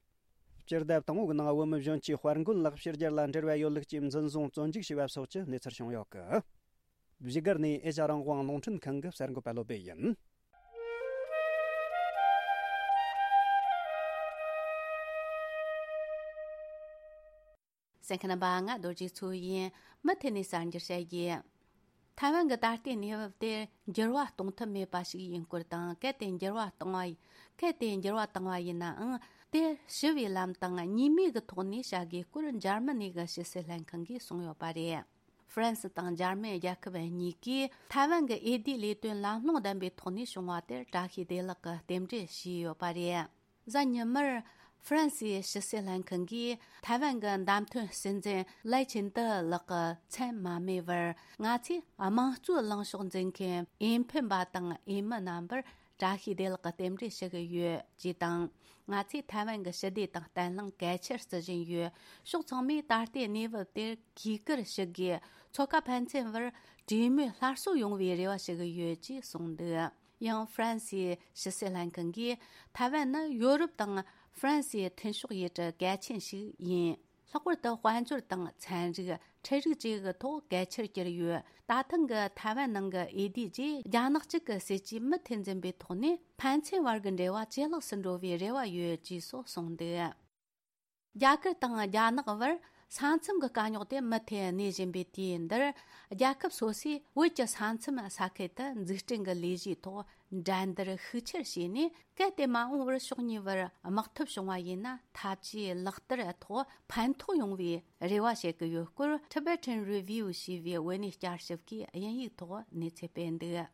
སྤྱི་ཟླ་དང་པོ་གི་ནང་བོད་མི་གཞོན་སྐྱེས་དཔལ་མགོན་ལགས་ཕྱི་རྒྱལ་ལ་འབྲེལ་བ་ཡོད་ལུགས་ཀྱིས་འཛིན་བཟུང་བཙོན་འཇུག་བྱས་པ་སོགས་ཀྱི་གནས་ཚུལ་བྱུང་ཡོད་གི། བཞུགས་སྒར་ནས་ཨེ་ཤ་རང་དབང་རླུང་འཕྲིན་ཁང་གི་གསར་འགོད་པ་བློ་བྷེ་ཡིན། གསན་མཁན་རྣམ་པ། ང་རྡོ་རྗེ་མཚོ་ཡིན། མུ་མཐུད་ནས་གསར་འགྱུར་བཤད་རྒྱུ། ཐའེ་ཝན་གྱི་ད་ལྟའི་གནས་བབ་དེར་འགྱུར་བ་གཏོང་ཐབས་མེད་པ་ཞིག་ཡིན་སྐོར་དང་། གལ་ཏེ་འགྱུར་བ་བཏང་བ། གལ་ཏེ་འགྱུར་བ་བཏང་བ་ཡིན་ནའང་། དེར་ཞི་བའི་ལམ་དང་གཉིས་མོས་ཀྱི་ཐོག་ནས་བྱ་དགོས་སྐོར་འཇར་མ་ནི་གི་ཕྱི་སྲིད་ལྷན་ཁང་གིས་གསུངས་ཡོད་པ་རེད། ཧྥ་རན་སི་དང་འཇར་མན་རྒྱལ་ཁབ་གཉིས་ཀས་ཐའེ་ཝན་གྱི་འོས་བསྡུའི་ལས་དོན་ལམ་ལྷོང་ལྡན་པའི་ཐོག་ནས་བྱུང་བ་དེར་བཀྲ་ཤིས་བདེ་ལེགས་ཀྱི་རྟེན་འབྲེལ་ཞུས་ཡོད་པ་རེད། གཟའ་ཉི་མར་ཧྥ་རན་སིའི་ཕྱི་སྲིད་ལྷན་ཁང་གིས་ཐའེ་ཝན་གྱི་བདམས་ཐོན་སྲིད་འཛིན་ལའེ་ཆིན་ཏི་ལགས་ཀྱི་མཚན་མ་སྨོས་པར། ང་ཚོས་དམངས་གཙོའི་ལངས་ཕྱོགས་འཛིན་མཁན་འོས་འཕེན་པ་དང་འོས་མི་རྣམ་པར་བཀྲ་ཤིས་བདེ་ལེགས་ཀྱི་རྟེན་འབྲེལ་ཞུ་གི་ཡོད་ཅེས་དང་། ང་ཚོས་ཐའེ་ཝན་གྱི་ཞི་བདེ་དང་བརྟན་ལྷིང་གལ་ཆེར་བརྩི་བཞིན་ཡོད། ཕྱོགས་ཚང་མས་ད་ལྟའི་གནས་བབ་དེར་གུས་བཀུར་ཞུ་དགོས། མཚོ་ཁ་ཕན་ཚུན་བར་གྲོས་མོལ་སླར་གསོ་ཡོང་བའི་རེ་བ་ཞུ་གི་ཡོད་ཅེས་གསུངས་འདུག། ཡང་ཧྥ་རན་སིའི་ཕྱི་སྲིད་ལྷན་ཁང་གིས། ཐའེ་ཝན་ནི་ཡོ་རོབ་དང་ཧྥ་རན་སིའི་མཐུན་ཕྱོགས་ཡུལ་གྲུ་གལ་ཆེན་ཞིག་ཡིན། ལྷག་པར་དུ་དཔལ་འབྱོར་དང་ཚན་རིག་ཁྲལ་རིག་བཅས་ཀྱི་ཐོག་གལ་ཆེར་གྱུར་ཡོད། ད་ཐེངས་ཀྱི་ཐའེ་ཝན་ནང་གི་འོས་བསྡུའི་རྗེས། རྒྱ་ནག་གཅིག་གི་སྲིད་ཇུས་མུ་མཐུད་འཛིན་པའི་ཐོག་ནས། ཕན་ཚུན་བར་གྱི་འབྲེལ་བ་ཇེ་ལེགས་སུ་འགྲོ་བའི་རེ་བ་ཡོད་ཅེས་སོགས་གསུངས་འདུག། རྒྱ་གར་དང་རྒྱ་ནག་བར་ ས་མཚམས་ཀྱི་དཀའ་རྙོག་དེ་མུ་མཐུད་གནས་བཞིན་པའི་དུས་འདིར། རྒྱལ་ཁབ་སོ་སོས་བོད་ཀྱི་ས་མཚམས་ས་ཁུལ་དུ་འཛུགས་སྐྲུན་གྱི་ལས་གཞིའི་ཐོག་འགྲན་བསྡུར་ཤུགས་ཆེར་བྱས་ནས། གལ་ཏེ་མ་འོངས་པར་ཕྱོགས་གཉིས་བར་དམག་འཐབ་བྱུང་བ་ཡིན་ན། འཐབ་ཇུས་ལག་བསྟར་ཐོག་ཕན་ཐོགས་ཡོང་བའི་རེ་བ་བྱེད་ཀྱི་ཡོད་སྐོར། Tibetan Review ཞེས་པའི་བོད་གནས་བསྐྱར་ཞིབ་ཀྱིས་དབྱིན་ཡིག་ཐོག་གནས་ཚུལ་སྤེལ་འདུག།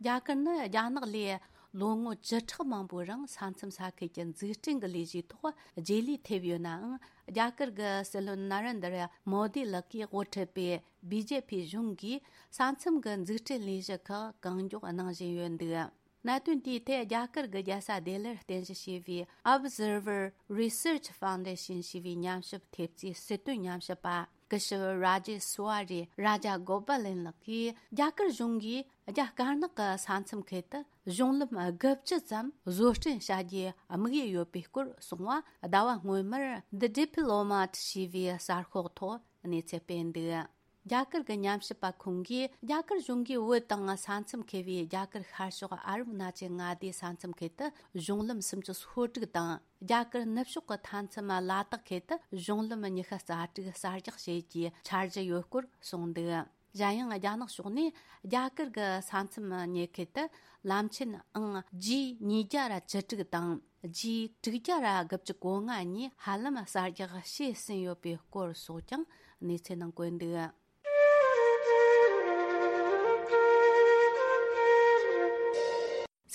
རྒྱ་གར་ནི་རྒྱ་ནག་ལས་ལོ་ངོ་བཅུ་ཕྲག་མང་པོའི་རིང་ས་མཚམས་ས་ཁུལ་གྱི་འཛུགས་སྐྲུན་གྱི་ལས་གཞིའི་ཐོག་རྗེས་ལུས་ཐེབས་ཡོད་ནའང་། རྒྱ་གར་གྱི་སྲིད་བློན་ན་རེན་དར་མོ་དི་ལགས་ཀྱིས་དབུ་ཁྲིད་པའི་བི་ཇེ་པི་གཞུང་གིས་ས་མཚམས་ཀྱི་འཛུགས་སྐྲུན་ལས་གཞི་ཁག་གང་མགྱོགས་གནང་བཞིན་ཡོད་འདུག། གནད་དོན་དེའི་ཐད་རྒྱ་གར་གྱི་རྒྱལ་ས་ལྡི་ལིར་རྟེན་གཞི་བྱས་པའི་Observer Research Foundation ཞེས་པའི་ཉམས་ཞིབ་ཐེབས་རྩའི་སྲིད་དོན་ཉམས་ཞིབ་པ། སྐུ་ཞབས་Rajeswari Rajagopal ལགས་ཀྱིས། རྒྱ་གར་གཞུང་གིས་རྒྱ་དཀར་ནག་གི་ས་མཚམས་ཁུལ་དུ་གཞུང་ལམ་དགུ་བཅུ་ཙམ་བཟོ་སྐྲུན་བྱ་རྒྱུའི་དམིགས་ཡུལ་ཡོད་པའི་སྐོར་གསུངས་བ། ཟླ་བ་སྔོན་མར་The Diplomat ཞེས་པའི་གསར་ཤོག་ཐོག་གནས་ཚུལ་སྤེལ་འདུག། རྒྱ་གར་གྱི་ཉམས་ཞིབ་པ་ཁོང་གིས། རྒྱ་གར་གཞུང་གིས་བོད་དང་ས་མཚམས་ཁེལ་བའི་རྒྱ་གར་ཤར་ཕྱོགས་ཨ་རབ་མནའ་ཆེན་མངའ་སྡེའི་ས་མཚམས་ཁུལ་དུ་གཞུང་ལམ་སུམ་ཅུ་སོ་དྲུག་དང་། རྒྱ་གར་ནུབ་ཕྱོགས་ཀྱི་མཐའ་མཚམས་ལ་དྭགས་ཁུལ་དུ་གཞུང་ལམ་ཉི་ཤུ་རྩ་དྲུག་གསར་རྒྱག་བྱེད་རྒྱུའི་འཆར་གཞི་ཡོད་སྐོར་གསུངས་འདུག། གཞན་ཡང་རྒྱ་ནག་ཕྱོགས་ནས་རྒྱ་གར་གྱི་ས་མཚམས་ཉེ་ཁུལ་དུ་ལམ་ཆེན་ཨང་ཇི་ཉིས་བརྒྱ་ར་བཅུ་དྲུག་དང་ཇི་དྲུག་བརྒྱ་ར་དགུ་བཅུ་གོ་ལྔ་གཉིས་ཧ་ལམ་གསར་རྒྱག་བྱས་ཟིན་ཡོད་པའི་སྐོར་སོགས་ཀྱང་གནས་ཚུལ་ནང་བཀོད་འདུག།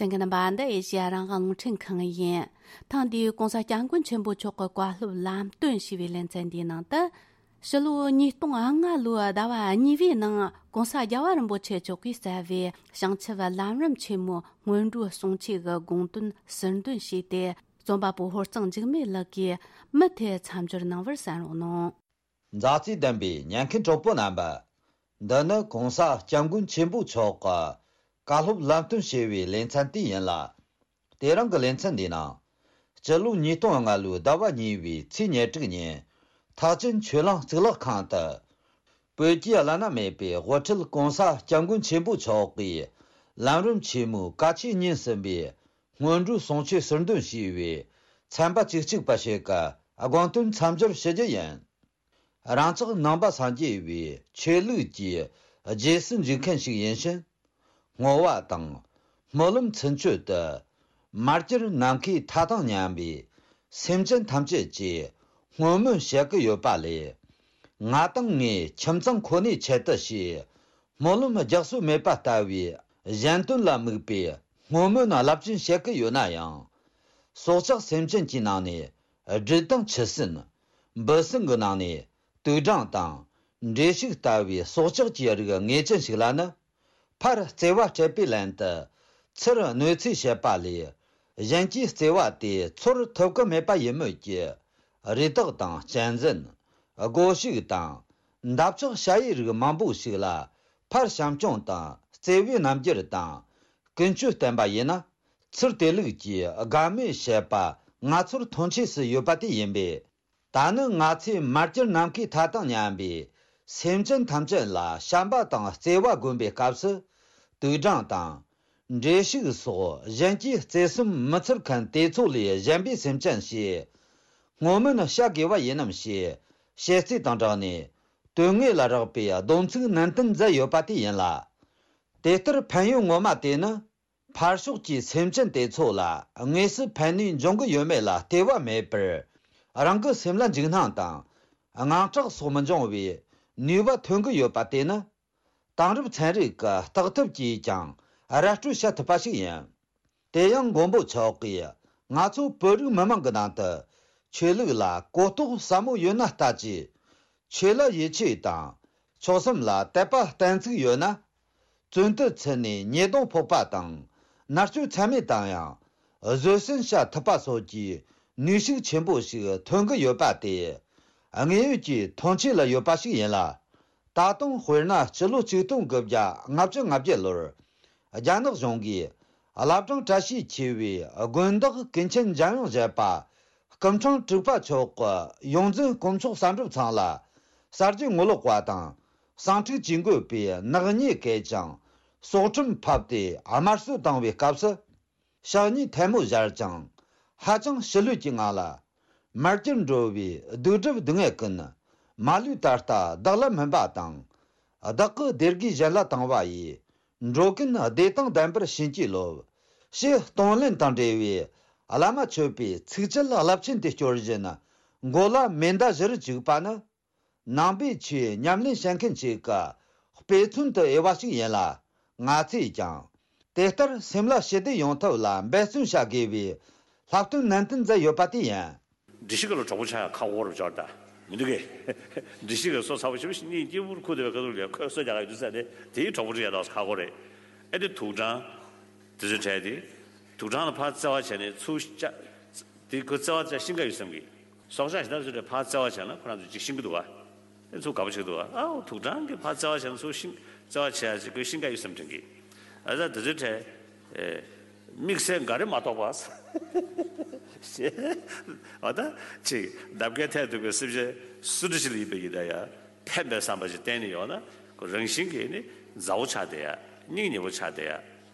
གསན་མཁན་རྣམ་པ། འདི་ཨེ་ཤེ་ཡ་རང་དབང་རླུང་འཕྲིན་ཁང་ཡིན། ཐེངས་འདིའི་གོང་ས་སྐྱབས་མགོན་ཆེན་པོ་མཆོག་གི་བཀའ་སློབ་ལམ་སྟོན་ཞེས་པའི་ལེ་ཚན་འདིའི་ནང་དུ། ཕྱི་ལོ་ཉིས་སྟོང་ལྔ་ལོའི་ཟླ་བ་གཉིས་པའི་ནང་གོང་ས་རྒྱལ་བ་རིན་པོ་ཆེ་མཆོག་གིས་གཙོས་པའི་བྱང་ཆུབ་ལམ་རིམ་ཆེན་མོའི་སྔོན་འགྲོའི་གསུང་ཆོས་ཀྱི་དགོངས་དོན་ཟུར་འདོན་བྱས་ཏེ། རྩོམ་པ་པོ་ཧོར་གཙང་འཇིགས་མེད་ལགས་ཀྱིས་མུ་མཐུད་མཚམས་སྦྱོར་གནང་བར་གསན་རོགས་གནང་། མཛའ་བརྩེ་ལྡན་པའི་ཉན་མཁན་གྲོགས་པོ་རྣམ་པ། འདི་ནི་གོང་ས་སྐྱབས་མགོན་ཆེན་པོ་མཆོག་གི་བཀའ་སློབ་ལམ་སྟོན་ཞེས་པའི་ལེ་ཚན་དེ་ཡིན་ལ། དེ་རིང་གི་ལེ་ཚན་འདིའི་ནང་། སྤྱི་ལོ་ཉིས་སྟོང་ལྔ་ལོའི་ཟླ་བ་གཉིས་པའི་ཚེས་ཉེར་དྲུག་ཉིན། ཐེག་ཆེན་ཆོས་གླིང་གཙུག་ལག་ཁང་དུ། བོད་ཀྱི་བླ་ན་མེད་པའི་དབུ་ཁྲིད་གོང་ས་སྐྱབས་མགོན་ཆེན་པོ་མཆོག་གིས་ལམ་རིམ་ཆེན་མོའི་བཀའ་ཆོས་ཉིན་གསུམ་པའི་སྔོན་འགྲོའི་གསུང་ཆོས་ཟུར་འདོན་ཞུས་པའི་ཚན་པ་བཅུ་གཅིག་པ་ཞིག་གི་དགོངས་དོན་མཚམས་སྦྱོར་ཞུ་རྒྱུ་ཡིན། རང་ཅག་ནང་པ་སངས་རྒྱས་པའི་ཆོས་ལུགས་ཀྱི་རྗེས་སུ་འཇུག་མཁན་ཞིག་ཡིན་ཕྱིན། བསྔོ་བ་དང་སྨོན་ལམ་ཚུན་ཆོད་དུ། མར་གྱུར་ནམ་མཁའི་མཐའ་དང་མཉམ་པའི་སེམས་ཅན་ཐམས་ཅད་ཀྱི་བསྔོ་སྨོན་བྱེད་ཀྱི་ཡོད་པ་ལས། ང་དང་ངའི་ཁྱིམ་ཚང་ཁོ་ནའི་ཆེད་དུ་ཞེས་སྨོན་ལམ་རྒྱག་སྲོལ་མེད་པ་ལྟ་བུའི་གཞན་དོན་ལ་དམིགས་པའི་བསྔོ་སྨོན་རླབས་ཆེན་བྱེད་ཀྱི་ཡོད་ན་ཡང་། སྲོག་ཆགས་སེམས་ཅན་གྱི་ནང་ནས་སྦྲུལ་དང་ཁྱི་སྲིན། འབུ་སྲིན་གྱི་ནང་ནས་དུག་སྦྲང་དང་། འབྲས་ཕྱུགས་ལྟ་བུའི་སྲོག་ཆགས་ཀྱི་རིགས་ངེས་ཅན་ཞིག་ལ་ནི། ཕར་བརྩེ་བ་སྤྲད་པའི་ལན་དུ། ཚུར་གནོད་འཚེ་བྱེད་པ་ལས། གཞན་གྱི་བརྩེ་བ་དེ་ཚོར་ཐུབ་ཀྱི་མེད་པ་ཡིན་མོད་ཀྱི། རི་དྭགས་དང་གཅན་གཟན། སྒོ་ཕྱུགས་དང་། འདབ་ཆགས་ཞ་ཡི་རིགས་མང་པོ་ཞིག་ལ། ཕར་བྱམས་སྐྱོང་དང་བརྩེ་བའི་རྣམ་འགྱུར་དང་། ཀུན་སྤྱོད་བསྟན་པ་ཡིན་ན། ཚུར་དེ་ལུགས་ཀྱི་དགའ་མོས་བྱེད་པ་ང་ཚོར་མཐོང་ཆོས་སུ་ཡོད་པ་དེ་ཡིན་པས། ད་ནི་ང་ཚོས་མར་གྱུར་ནམ་མཁའི་མཐའ་དང་མཉམ་པའི་སེམས་ཅན་ཐམས་ཅད་ལ་བྱམས་པ་དང་བརྩེ་བ་བསྒོམ་པའི་སྐབས་སུ། དུག་སྦྲང་དང་། འབྲས་ཕྱུགས་སོགས་གཞན་གྱིས་བརྩེ་སེམས་མི་ཚོར་མཁན་དེ་ཚོ་ལས་གཞན་པའི་སེམས་ཅན་ཞེས་བསྔོ་སྨོན་བྱ་དགོས་པ་ཡིན་ནམ་ཞེས་བཤད་ཚུལ་དང་སྦྲགས་ནས། དོན་དངོས་ལ་རག་པའི་སྡོམ་ཚིག་ནན་ཏན་མཛད་ཡོད་པ་དེ་ཡིན་ལ། དེ་ལྟར་ཕན་ཡོན་ངོ་མ་དེ་ནི། ཕར་ཕྱོགས་ཀྱི་སེམས་ཅན་དེ་ཚོ་ལ་དངོས་སུ་ཕན་ནུས་འབྱུང་གི་ཡོད་མེད་ལ་ལྟོས་པ་མེད་པར། རང་གི་སེམས་ལ་འཇིགས་སྣང་དང་དངངས་སྐྲག་སོགས་མི་འབྱུང་བའི་ནུས་པ་ཐོན་གྱི་ཡོད་པ་དེ་ནི། དེང་རབས་ཚན་རིག་གི་བརྟག་ཐབས་ཀྱིས་ཀྱང་ར་སྤྲོད་བྱ་ཐུབ་པ་ཞིག་ཡིན། དེ་ཡང་མགོན་པོ་མཆོག་གིས་ང་ཚོ་བོད་རིགས་མི་དམངས་ཀྱི་ནང་དུ་ཆོས་ལུགས་ལ་གོ་རྟོགས་ཟབ་མོ་ཡོད་ན་ལྟ་ཅི། ཆོས་ལ་ཡིད་ཆེས་དང་། མཆོག་གསུམ་ལ་དད་པ་གཏན་ཚིགས་ཡོད་ན། བཙོན་དུ་ཚུད་ནས་ཉེས་རྡུང་ཕོག་པ་དང་། མནར་གཅོད་ཚད་མེད་དང་ཡང་། བཟོད་བསྲན་བྱ་ཐུབ་པ་སོགས་ཀྱི་ནུས་ཤུགས་ཆེན་པོ་ཞིག་ཐོན་གྱི་ཡོད་པ་དེ། དངོས་ཡོད་ཀྱི་མཐོང་ཆོས་ལ་ཡོད་པ་ཞིག་ཡིན་ལ། ད་དུང་དཔེར་ན་སྤྱི་ལོ་ཆིག་སྟོང་དགུ་བརྒྱ་ལྔ་བཅུ་ང་བརྒྱད་ལོར། རྒྱ་ནག་གཞུང་གིས་བླ་བྲང་བཀྲ་ཤིས་ཆེ་བའི་དགོན་བདག་ཀུན་མཁྱེན་འཇམ་དབྱངས་བཞད་པ། སྐུ་ཕྲེང་དྲུག་པ་མཆོག་གི་ཡོངས་འཛིན་དཀོན་མཆོག་གསར་འགྲུབ་ཚང་ལ་གསར་བརྗེ་ངོ་ལོག་པ་དང་། གསང་འཁྲུག་ཇུས་འགོད་པའི་ནག་ཉེས་བཀལ་ཅིང་། སྲོག་ཁྲིམས་ཕབ་སྟེ་དམར་གསོད་བཏང་བའི་སྐབས་སུ། ཕྱག་གཉིས་ཐལ་མོ་སྦྱར་ཅིང་། ཧ་ཅང་ཞི་ལྷོད་ཀྱི་ངང་ལ། མར་གྱུར་འགྲོ་བའི་གདུག་སྒྲུབ་སྡུག་བསྔལ་ཀུན། མ་ལུས་ད་ལྟ་བདག་ལ་སྨིན་པ་དང་། བདག་གི་བདེ་དགེ་གཞན་ལ་བཏང་བ་ཡིས། འགྲོ་ཀུན་བདེ་དང་ལྡན་པར་བྱིན་གྱིས་རློབས། ཞེས་གཏོང་ལེན་དང་འབྲེལ་བའི་བླ་མ་མཆོད་པའི་ཚིགས་བཅད་རླབས་ཆེན་དེ་སྐྱོར་བཞིན་མགོ་ལ་མེ་མདའ་བཞིར་བཅུག་པ་ནི། ནང་པའི་ཆོས་ཉམས་ལེན་བྱེད་མཁན་ཞིག་གི་དཔེ་མཚོན་དུ་འོས་པ་ཞིག་ཡིན་ལ། ང་ཚོས་ཀྱང་དེ་ལྟར་སེམས་ལ་ཞི་བདེ་ཡོང་ཐབས་ལ་འབད་བརྩོན་བྱ་དགོས་པའི་བསླབ་སྟོན་ནན་ཏན་མཛད་ཡོད་པ་དེ་ཡིན། སྒྲིག་གཞི་ག་ལ་གྲོགས་པོ་ཆགས་ཡ་ཁག་པོ་རུ་འབྱོར་ད། མི་འདུག་གས། སྒྲིག་གཞི་ག་སོ་ཚ་པོ་ཞེ་པོ་ཞིག་གཉིད་སྐྱིད་པོར་ཁུག་བསྡད་པའི་ཁ་ཐུག་ལ་ཁོས་སོ་རྒྱག་ག་ཡོད་དུས་ས་དེ་དེའི་གྲོགས་པོ་རུ་ཡ་ད་ཁག་པོ་རེད། ཨེ་དེ་དུག་སྦྲང་། དེ་ཚོའི་གྲས་དེ། དུག་སྦྲང་ལ་ཕར་བརྩེ་བ་བྱས་ནས་ཚུར་བཅག་དེ་ཁོ་བརྩེ་བ་བྱས་ཤིང་ཀ་ཡོད་བསམ་གི། སྲོག་ཆགས་གཞན་དག་ཚོའི་གྲས་ཕར་བརྩེ་བ་བྱས་ན་ཁོ་རང་ཚོ་ཅིག་ཤིང་གི་འདུག་བ། ཨེ་ཚུར་དགའ་པོ་བྱེད་འདུག་བ། ཨའོ་དུག་སྦྲང་གིས་ཕར་བརྩེ་བ་བྱས་ན་ཚུར་ཤིང་བརྩེ་བ་བྱས་ཡ་ཅིག་ཁོས་ཤིང་ཀ་ཡོད་བསམ་དྲན་གི། ཨ་ད་དེ་ཚོའི་གྲས། ཨེ། དམིགས་བསལ་འགའ་རེ་མ་གཏོགས་པ། ཞེས། འོ་ད། ཅིག་འདབ་ཁའི་ཐད་གཏུགས་པའི་སེམས་ཅན་སུ་འདྲ་ཞིག་ལ་ཡིན་པའི་ཡིན་ད་ཡ། ཕན་པའི་བསམ་པ་ཞིག་གཏན་ནས་ཡོད་ན། ཁོ་རང་བཞིན་གྱིས་ནི་མཛའ་བོ་ཆགས་བསྡད་ཡ། སྙིང་ཉེ་བོ་ཆགས་བསྡད་ཡ།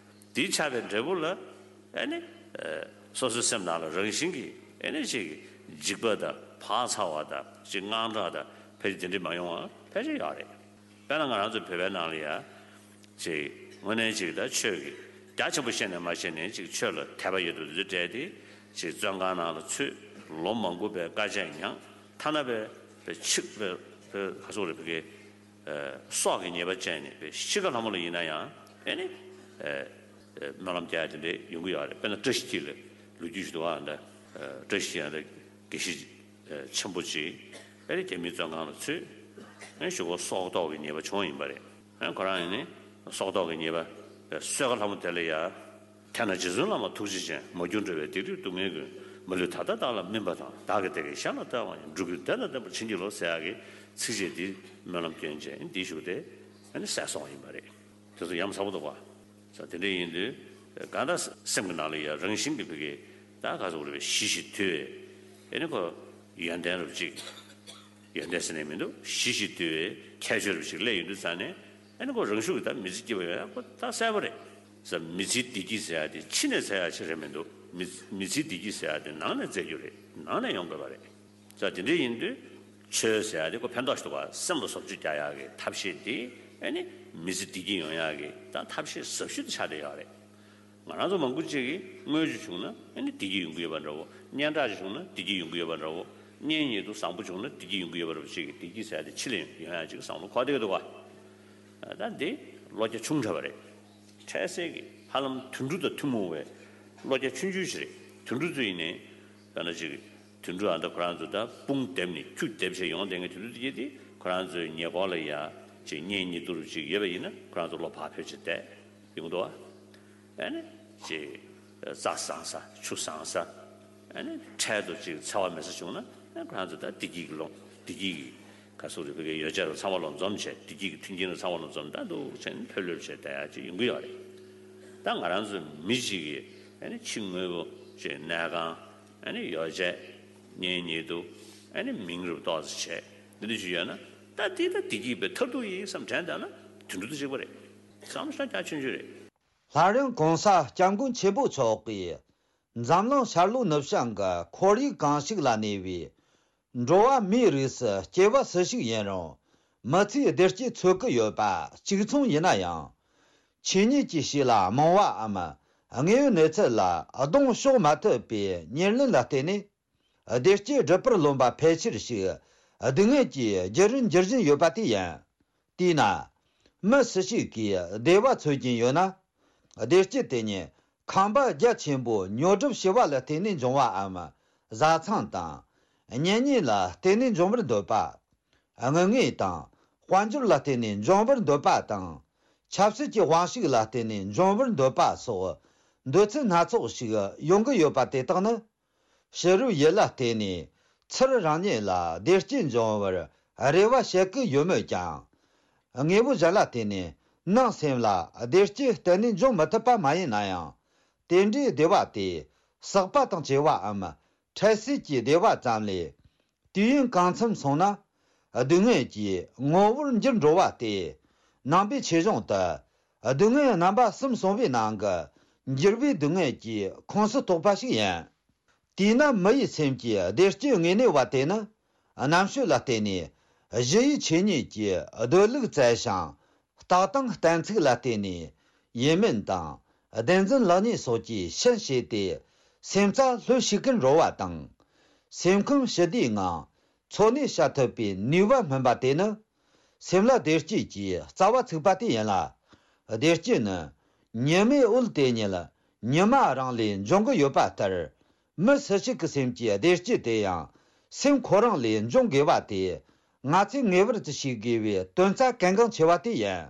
དེའི་ཆགས་པའི་འབྲས་བུ་ལ། ཨེ་ནི། ཨེ། སོ་སོའི་སེམས་ནང་ལ་རང་བཞིན་གྱིས་ཨེ་ནི་ཅིག་འཇིགས་པ་དང་བག་ཚ་བ་དང་ཅིག་དངངས་སྐྲག་དང་ཕལ་ཆེར་དེ་འདྲ་མ་ཡོང་བ་ཕལ་ཆེར་ཡོད་རེད། དཔེར་ན་ང་རང་ཚོ་བོད་པའི་ནང་ལ་ཡ། ཅིག་དངོས་གནས་ཅིག་ད་ཆོས་ཀྱི་རྒྱ་ཆེན་པོ་ཤེས་ནས་མ་ཤེས་ནས་ཅིག་ཆོས་ལ་དད་པ་ཡོད་དུ་འདི་འདྲ་དེ་ཅིག་བཙོན་ཁང་ནང་ལ་ཚུད། ལོ་མང་པོ་པའི་དཀའ་སྤྱད་མྱངས། ཐ་ན་པའི་པའི་ཆིག་པའི་པའི་ག་སོག་རེ་བི་གའི་སྲོག་གི་ཉེས་པ་བཅད་ནས་པའི་ཤི་ཁ་ལྷ་མོ་ལ་ཡིན་ན་ཡང་ཨེ་ནི་སྨོན་ལམ་རྒྱག་ཡ་དེ་འདྲ་ཡོང་གི་ཡོད་རེད། དཔེར་ན་བཀྲ་ཤིས་འཁྱིལ་ལ་ལོ་རྒྱུས་ཞིག་འདུག་ཨ། འདི་བཀྲ་ཤིས་འཁྱིལ་ལ་དགེ་བཤེས་ཆེན་པོ་ཅིག་ཨེ་རྒྱ་མིའི་བཙོན་ཁང་ལ་ཚུད། ཨེ་གཞུག་གུ་སྲོག་ཐོག་གི་ཉེས་པ་བྱུང་ཡིན་པ་རེད། ཨེ་ཁོ་རང་ཡིན་ནི་སྲོག་ཐོག་གི་ཉེས་པ་གསོལ་ཁ་ལྷ་མོ་དེ་ལ་ཡ། དེས་ན་རྗེ་བཙུན་བླ་མ་ཐུགས་རྗེ་ཅན། མ་གྱུར་འགྲོ་བའི་སྡིག་སྒྲིབ་སྡུག་བསྔལ་ཀུན། མ་ལུས་ད་ལྟ་བདག་ལ་སྨིན་པ་དང་། བདག་གི་བདེ་དགེ་གཞན་ལ་སྟེར་བ་ཡིན། འགྲོ་ཀུན་བདེ་དང་ལྡན་པར་བྱིན་གྱིས་རློབས་ཟེར་ཡག་གི་ཚིགས་བཅད་འདི་སྨོན་ལམ་སྐྱོན་ཅན་འདི་བཞུགས་ཏེ་ཨེ་ནི་གསལ་སོང་བ་ཡིན་པ་རེད། དེ་ཚོ་ཡ་མཚན་པོ་འདུག་ག་ས་དེ་འདྲ་ཡིན་དུས། གང་ལྟར་སེམས་ཀྱི་ནང་ལ་ཡ་རང་བཞིན་གྱིས་བུ་གའི་ད་ག་ཚོད་རེད་པས་ཞི་ཞིང་དུལ་བའི་ཨེ་ནི་ཁོ་ཡོན་ཏན་རབ་ཅིག་ཡོན་ཏན་ཟེར་ནས་མི་འདུག་ཞི་ཞིང་དུལ་བའི་ཁྱད་ཆོས་རབ་ཅིག་སླེབས་ཡོང་དུས་ཙང་ནས་ཨེ་ནི་ཁོ་རང་ཤུགས་ཀྱིས་ད་མི་ཚེ་སྐྱིད་པ་ཡོང་ཡ་ཁོ་ད་གསལ་པོ་རེད། ས་མི་ཚེའི་བདེ་སྐྱིད་ཟེར་ཡ་དེ་ཕྱི་ནས་འཚོལ་ཡ་ཅིག་རེད་མི་འདུག་མི་མི་ཚེའི་བདེ་སྐྱིད་ཟེར་ཡ་དེ་ནང་ནས་འཚོལ་རྒྱུ་རེད། ནང་ནས་ཡོང་དགོས་པ་རེད། ས་དེ་འདྲ་ཡིན་དུས་ཆོས་ཟེར་ཡ་དེ་ཁོ་ཕན་ཐོགས་ཤིག་འདུག་ག་སེམས་ལ་བཟོ་བཅོས་རྒྱག་ཡག་གི་ཐབས་ཤེས་དེ་ཨེ་ནི་མི་ཚེ་བདེ་སྐྱིད་ཡོང་ཡག་གི་ད་ཐབས་ཤེས་ཟབ་ཤོས་དེ་ཆགས་བསྡད་ཡོད་རེད། ང་རང་ཚོ་མང་པོ་ཅིག་གིས་དངུལ་ཅིག་བྱུང་ན་ཨེ་ནི་བདེ་སྐྱིད་ཡོང་གི་ཡོད་པ་འདྲ་བོ། སྙན་གྲགས་ཅིག་བྱུང་ན་བདེ་སྐྱིད་ཡོང་གི་ཡོད་པ་འདྲ་བོ། གཉེན་ཉེ་དུ་བཟང་པོ་བྱུང་ན་བདེ་སྐྱིད་ཡོང་གི་ཡོད་པ་འདྲ་བོ་ཅིག་གིས་བདེ་སྐྱིད་ཟེར་ཡ་དེ་ཕྱི་ལ་ཡོང་ཡག་ཅིག་བསམ་བློ་འཁོར་བསྡད་ཀྱི་འདུག་ག་ད་འདི་བློ་རྒྱ་ཆུང་དྲགས་པ་རེད། འཕྲལ་སེལ་གྱི་ཧ་ལམ་དུད་འགྲོ་དང་ཐུན་མོང་བའི་བློ་རྒྱ་ཆུང་ཆུང་ཞིག་རེད། དུད་འགྲོ་ཚོ་ཡིན་ནའི། དཔེར་ན་ཅིག་དུད་འགྲོ་ཨ་ད་ཁོ་རང་ཚོ་ད་དཔུང་བསྡེབས་ནས་ཁྱུ་བསྡེབས་བྱས་ཡོང་བསྡད་མཁན་དུད་འགྲོ་དེ་གྱད་དེ་ཁོ་རང་ཚོའི་ཉེ་འཁོར་ལ་ཡ་ཅིག་གཉེན་ཉེ་དུ་རུ་ཅིག་ཡོད་པ་ཡིན་ན་ཁོ་རང་ཚོ་བློ་བག་ཕེབས་བྱས་བསྡད་ཡོང་འདུག་ཨ། ཨ་ནི་ཅིག་རྩྭ་བཟང་ས་ཆུ་བཟང་ས། ཨ་ནི་འཕྲལ་དུ་ཅིག་འཚེ་བ་མེད་ས་བྱུང་ན་ཨ་ཁོ་རང་ཚོ་ད་བདེ་སྐྱིད་ཀྱི་ལོངས་བདེ་སྐྱིད་ཀྱི་ག་ཚོད་རེད་བོད་ཀྱི་ཡོ་བྱད་ལ་ཚང་མ་ལ་འཛོམས་བྱས་བདེ་སྐྱིད་ཀྱི་མཐུན་རྐྱེན་ལ་ཚང་མ་ལ་འཛོམས་ད་འདུག་བྱས་ནས་ཕེབས་ལོས་བྱས་བསྡད་ཡག་ཅིག་ཡོང་གི་ཡོད་རེད། ད་ང་རང་ཚོ་མི་གཅིག་གིས་ཨ་ནི་ཕྱི་དངོས་པོ་ཅིག་གནས་ཁང་ཨ་ནི་ཡོ་བྱད་གཉེན་ཉེ་དུ་ཨ་ནི་མིང་རུ་ཏོག་ཙམ་བྱས་འདི་འདྲ་ཞིག་ཡོད་ན་ད་འདི་ད་བདེ་སྐྱིད་པའི་མཐར་ཐུག་ཡིན་བསམ་དྲན་བསྡད་ན་དུད་འགྲོ་དང་གཅིག་པ་རེད། བསམ་བློ་ཞེ་དྲག་ཆུང་ཆུང་རེད། སླར་ཡང་གོང་ས་སྐྱབས་མགོན་ཆེན་པོ་མཆོག་གིས་འཛམ་གླིང་ཤར་ལྷོ་ནུབ་བྱང་གི་ཁོར་ཡུག་གང་ཞིག་ལ་གནས་པའི་འགྲོ་བ་མིའི་རིགས་སུ་སྐྱེ་བ་སུ་ཞིག་ཡིན་རུང་མི་ཚེའི་བདེ་སྐྱིད་འཚོལ་གི་ཡོད་པ་གཅིག་མཚུངས་ཡིན་ན་ཡང་། ཆོས་ཉིད་ཀྱི་ཕྱི་ལ་རྨོངས་པའམ་དངོས་ཡོད་གནས་ཚུལ་ལ་གདོང་ཕྱོགས་མ་ཐུབ་པའི་ཉེར་ལེན་ལ་བརྟེན་ནས། བདེ་སྐྱིད་སྒྲུབ་པར་རློམ་པ་ཕལ་ཆེར་ཞིག་སྡུག་བསྔལ་གྱི་རྒྱུ་རུ་འགྱུར་བཞིན་ཡོད་པ་དེ་ཡིན། དེས་ན། མི་སུ་ཞིག་གིས་བདེ་བ་འཚོལ་གྱིན་ཡོད་ན། བདེ་སྐྱིད་དེ་ཉིད་ཁང་པ་རྒྱ་ཆེན་པོ་ཉོ་སྒྲུབ་བྱས་པ་ལ་བརྟེན་ནས་འབྱུང་བའམ། བཟའ་ཚང་དང་། གཉེན་ཉེ་ལ་བརྟེན་ནས་འབྱུང་བར་འདོད་པ། དངུལ་དངོས་དང་དཔལ་འབྱོར་ལ་བརྟེན་ནས་འབྱུང་བར་འདོད་པ་དང་། ཆབ་སྲིད་ཀྱི་དབང་ཤུགས་ལ་བརྟེན་ནས་འབྱུང་བར་འདོད་པ་སོགས་འདོད་ཚུལ་སྣ་ཚོགས་ཤིག་ཡོང་གི་ཡོད་པ་དེ་དག་ནི། ཕྱི་རོལ་ཡུལ་ལ་བརྟེན་ནས་ཚུར་རང་ཉིད་ལ་བདེ་སྐྱིད་འབྱུང་བར་རེ་བ་བྱེད་ཀྱི་ཡོད་མོད་ཀྱང་། དངོས་པོ་གཞན་ལ་བརྟེན་ནས་ནང་སེམས་ལ་བདེ་སྐྱིད་གཏན་ནས་འབྱུང་མི་ཐུབ་པ་མ་ཡིན་ན་ཡང་། དེ་འདྲའི་བདེ་བ་དེ་ཟག་པ་དང་བཅས་པའམ་འཕྲལ་སེལ་གྱི་བདེ་བ་ཙམ་ལས། དུས་ཡུན་གང་འཚམ་སོང་ན་སྡུག་བསྔལ་གྱི་ངོ་བོར་འགྱུར་འགྲོ་བ་སྟེ། ནང་པའི་ཆོས་གཞུང་དུ་སྡུག་བསྔལ་རྣམ་པ་གསུམ་གསུངས་པའི་ནང་གི་འགྱུར་བའི་སྡུག་བསྔལ་གྱི་ཁོངས་སུ་གཏོགས་པ་ཞིག་ཡིན། དེས་ན་མི་ཡི་སེམས་ཀྱི་བདེ་སྐྱིད་དངོས་གནས་པ་དེ་ནི་རྣམ་དཔྱོད་ལ་བརྟེན་ནས་ གཞི་ཡི་ཆོས་ཉིད་ཀྱི་སྡོད་ལུགས་བཙལ་ཞིང་། རྟགས་དང་གཏན་ཚིགས་ལ་བརྟེན་ནས་ཡིན་མིན་དང་བདེན་རྫུན་ལེགས་ཉེས་སོགས་ཀྱི་ཕྱིན་བྱས་ཏེ་སེམས་རྩ་ལྷོད་ཤེས་ཀུན་རོལ་བ་དང་། སེམས་ཁམས་ཞི་བདེའི་ངང་འཚོ་གནས་བྱ་ཐུབ་པའི་ནུས་པ་སྨིན་པ་དེ་ནི། སེམས་ལ་བདེ་སྐྱིད་ཀྱི་རྩ་བ་ཚུགས་པ་དེ་ཡིན་ལ། བདེ་སྐྱིད་ནི་ཉི་མའི་འོད་དེ་ཉིད་ཉི་མ་རང་ལས་འབྱུང་གི་ཡོད་པ་ལྟར། མི་སུ་ཞིག་གི་སེམས་ཀྱི་བདེ་སྐྱིད་དེ་ཡང་སེམས་ཁོ་རང་ལས་འབྱུང་དགོས་པ་དེ། ང་ཚོས་ངེས་པར་དུ་ཤེས་དགོས་པའི་དོན་རྩ་གལ་འགངས་ཆེ་བ་དེ་ཡིན།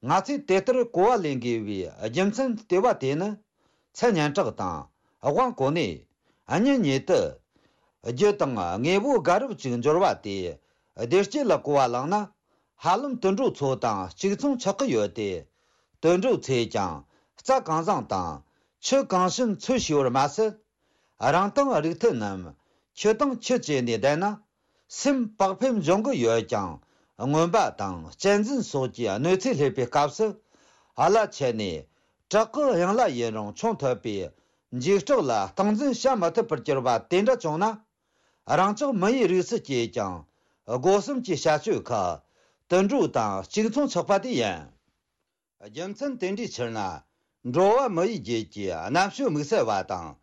ང་ཚོས་དེ་ལྟར་གོ་བ་ལེན་དགོས་པའི་རྒྱུ་མཚན་ལྟེ་བ་དེ་ནི། མཚན་སྙན་གྲགས་དང་དབང་གོ་གནས། གཉེན་ཉེ་དུ། རྒྱུ་དང་དངོས་པོ་དགའ་རབ་ཅིག་འབྱོར་བ་དེ། བདེ་སྐྱིད་ལ་གོ་བ་བླངས་ན། ཧ་ལམ་དུད་འགྲོ་ཚོ་དང་གཅིག་མཚུངས་ཆགས་ཀྱི་ཡོད་དེ། དུད་འགྲོ་ཚོས་ཀྱང་རྩྭ་གང་བཟང་དང་ཆུ་གང་ཞིམ་འཚོལ་ཤེས་པར་མ་ཟད། རང་དང་རིགས་མཐུན་རྣམས་ཁྱི་དང་ཁྱི་བཅས་ནས་བསྡད་ན། སེམས་བག་ཕེབས་འབྱུང་གི་ཡོད་ཀྱང་། རྔོན་པ་དང་གཅན་གཟན་སོགས་ཀྱི་གནོད་འཚེ་སླེབས་པའི་སྐབས་སུ། ཨ་ལ་ཆད་ནས་བྲག་གི་གཡང་ལ་ཡིན་རུང་མཆོང་ཐུབ་པའི་འཇིགས་སྐྲག་ལ་སྟངས་འཛིན་བྱ་མི་ཐུབ་པར་གྱུར་པ་དེ་འདྲ་བྱུང་ན། རང་ཅག་མི་ཡི་རིགས་སུ་སྐྱེས་ཀྱང་སྒོ་གསུམ་གྱི་བྱ་སྤྱོད་ཁག་དུད་འགྲོ་དང་གཅིག་མཚུངས་ཆགས་པ་དེ་ཡིན། རྒྱུ་མཚན་དེ་འདྲའི་ཕྱིར་ན། འགྲོ་བ་མི་ཡི་རྒྱུད་ཀྱི་རྣམ་དཔྱོད་དམིགས་བསལ་བ་དང་།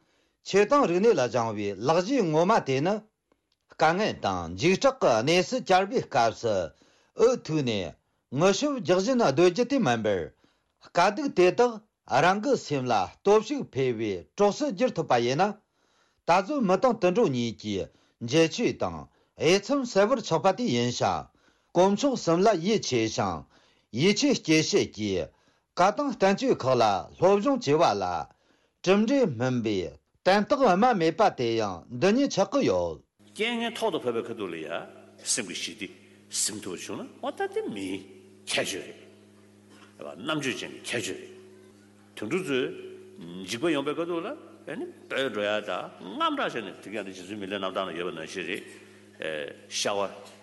ཆོས་དང་རིག་གནས་ལ་སྦྱངས་པའི་ལག་རྗེས་ངོ་མ་དེ་ནི། དཀའ་ངལ་དང་འཇིགས་སྐྲག་གི་གནས་སུ་གྱར་བའི་སྐབས་སུ་འུ་ཐུག་ནས་ངུ་ཤུབས་རྒྱག་བཞིན་སྡོད་རྒྱུ་དེ་མིན་པར། དཀའ་སྡུག་དེ་དག་རང་གི་སེམས་ལ་སྟོབས་ཤུགས་འཕེལ་བའི་གྲོགས་སུ་བསྒྱུར་ཐུབ་པ་ཡིན་ན། ད་གཟོད་མི་དང་དུད་འགྲོ་གཉིས་ཀྱི་འབྱེད་ཆོས་དང་དབྱེ་མཚམས་གསལ་བར་ཆགས་པ་དེ་ཡིན་ཞིང་། དཀོན་མཆོག་གསུམ་ལ་ཡིད་ཆེས་ཤིང་ཡིད་ཆེས་སྐྱེད་བྱེད་ཀྱི་བཀའ་དང་བསྟན་བཅོས་ཁག་ལ་སློབ་སྦྱོང་བྱས་པ་ལ། གྲུབ་འབྲས་སྨིན་པའི་དན་རྟགས་སྨྲ་མེད་པ་དེ་ཡང་འདི་ཉིད་ཆགས་ཀྱི་ཡོད། རྐྱེན་ངན་ཐོག་ཏུ་བབས་པའི་ཁ་ཐུག་ལ་ཡ། སེམས་ཀྱི་ཞི་བདེ་ཟིན་ཐུབ་པ་བྱུང་ན། འོ་ད་དེ་མིའི་ཁྱད་ཆོས་རེད། རྣམ་དཔྱོད་ཅན་གྱི་ཁྱད་ཆོས་རེད། དུད་འགྲོ་ཚོས་འཇིགས་པ་ཡོང་པའི་ཁ་ཐུག་ལ་ཨེ་ནི་སྤོས་འགྲོ་ཡ་དང་དངངས་སྐྲག་བྱས་ནས། དེ་ག་ནི་རྗེ་བཙུན་མི་ལའི་རྣམ་ཐར་ན་ཡོད་པ་ནང་བཞིན་རེད། ཨེ་ཤ་བ་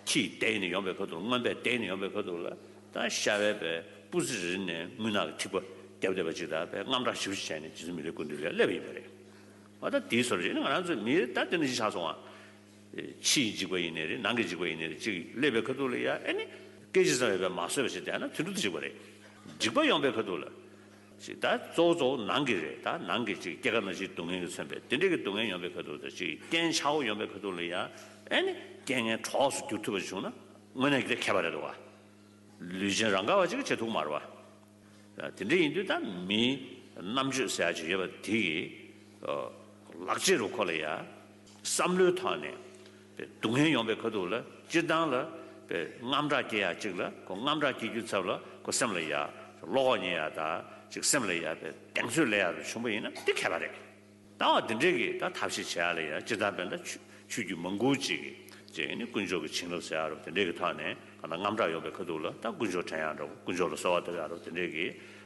ཁྱིས་བལྡད་ནས་ཡོང་པའི་ཁ་ཐུག་རྔོན་པས་བལྡད་ནས་ཡོང་པའི་ཁ་ཐུག་ལ། ད་ཤ་བའི་པའི་སྤུ་རྩེ་རེ་ནས་རྔུལ་ནག་གི་ཐིགས་པ་བརྒྱབ་བསྡད་པ་ཅིག་དང་། པའི་དངངས་སྐྲག་ཞེ་པོ་ཅིག་བྱས་ནས་རྗེ་བཙུན་མི་ལའི་སྐུ་མདུན་ལ་སླེབས་ཡིན་པ་རེད། འོ་ད་དེའི་བཟོ་འདྲ་ཅིག་ནི་ང་རང་ཚོའི་མི་ད་དེ་འདྲ་ཅིག་ཆགས་སོང་བ། ཕྱི་ཡི་འཇིགས་པ་ཡིན་ནའི་རེད། ནང་གི་འཇིགས་པ་ཡིན་ནའི་རེད། ཅིག་སླེབས་པའི་ཁ་ཐུག་ལ་ཡ་ཨེ་ནི། སྐད་ཅིག་ཙམ་ཡོད་པས་མ་བཟོད་པ་ཞིག་བསྡད་ན་དུད་འགྲོ་དེ་འཇིགས་པ་རེད། འཇིགས་པ་ཡོང་པའི་ཁ་ཐུག་ལ། ཅིག་ད་གཙོ་བོ་གཙོ་བོ་ནང་གི་རེད། ད་ནང་གི་ཅིག་སྐྱེ་རྒ་ན་འཆིའི་སྡུག་བསྔལ་གྱིས་མཚོན་པའི་དེ་འདྲའི་གི་སྡུག་བསྔལ་ཡོང་པའི་ཁ་ཐུག་དང་། ཅིག་རྐྱེན་ཆག་སྒོ་ཡོང་པའི་ཁ་ཐུག་ལ་ཡ་ཨེ་ནི་རྐྱེན་ངན་གྲོགས་སུ་འགྱུར་ཐུབ་པ་བྱུང་ན་དངོས་གནས་ཀྱི་དེ་ཁྱད་པར་རེད་འདུག་བ། ལུས་ཅན་རང་ག་བ་ཅིག་གིས་བྱེད་ཐུབ་མ་རེད་བ། དེ་འདྲ་ཡིན་དུས་ད་མིའི་རྣམ་དཔྱོད་ཟེར་ཡ་ཅིག་ཡོད་པ་དེ་གིས། ལག་རྗེས་རུ་ཁོ་ལ་ཡ། བསམ་བློའི་ཐོག་ནས་སྡུག་བསྔལ་ཡོང་པའི་ཁ་ཐུག་ལ། སྤྱིར་བཏང་ལ་དངངས་སྐྲག་སྐྱེ་ཡ་ཅིག་ལ། ཁོ་དངངས་སྐྲག་སྐྱེ་རྒྱུའི་ཚབ་ལ་ཁོ་སེམས་ལ་ཡ་བློ་ཁོག་རྙེད་ཡ་དང་། ཅིག་སེམས་ལ་ཡ་གདེང་ཚོད་སླེབས་ཡ་རུ་བྱུང་པ་ཡིན་ན་དེ་ཁྱད་པར་རེད། ད་བ་འདི་འདྲའི་གི་ད་ཐབས་ཤེས་བྱེད་ཡ་ལ་ཡ། སྤྱིར་བཏང་དཔེར་ན་ཆོས་ཆོས་བརྒྱུད་མང་པོ་ཅིག་གིས་ཅིག་ནི་དཀོན་མཆོག་གི་བྱིན་རླབས་ཟེར་ཡ་རུ་དེ་འདྲའི་གི་ཐོག་ནས། གང་ལྟར་དངངས་སྐྲག་ཡོང་པའི་ཁ་ཐུག་ལ་ད་དཀོན་མཆོག་དྲན་ཡ་འདྲ་བོ། དཀོན་མཆོག་ལ་གསོལ་བ་བཏབ་ཡ་རུ་དེ་འདྲའི་གི་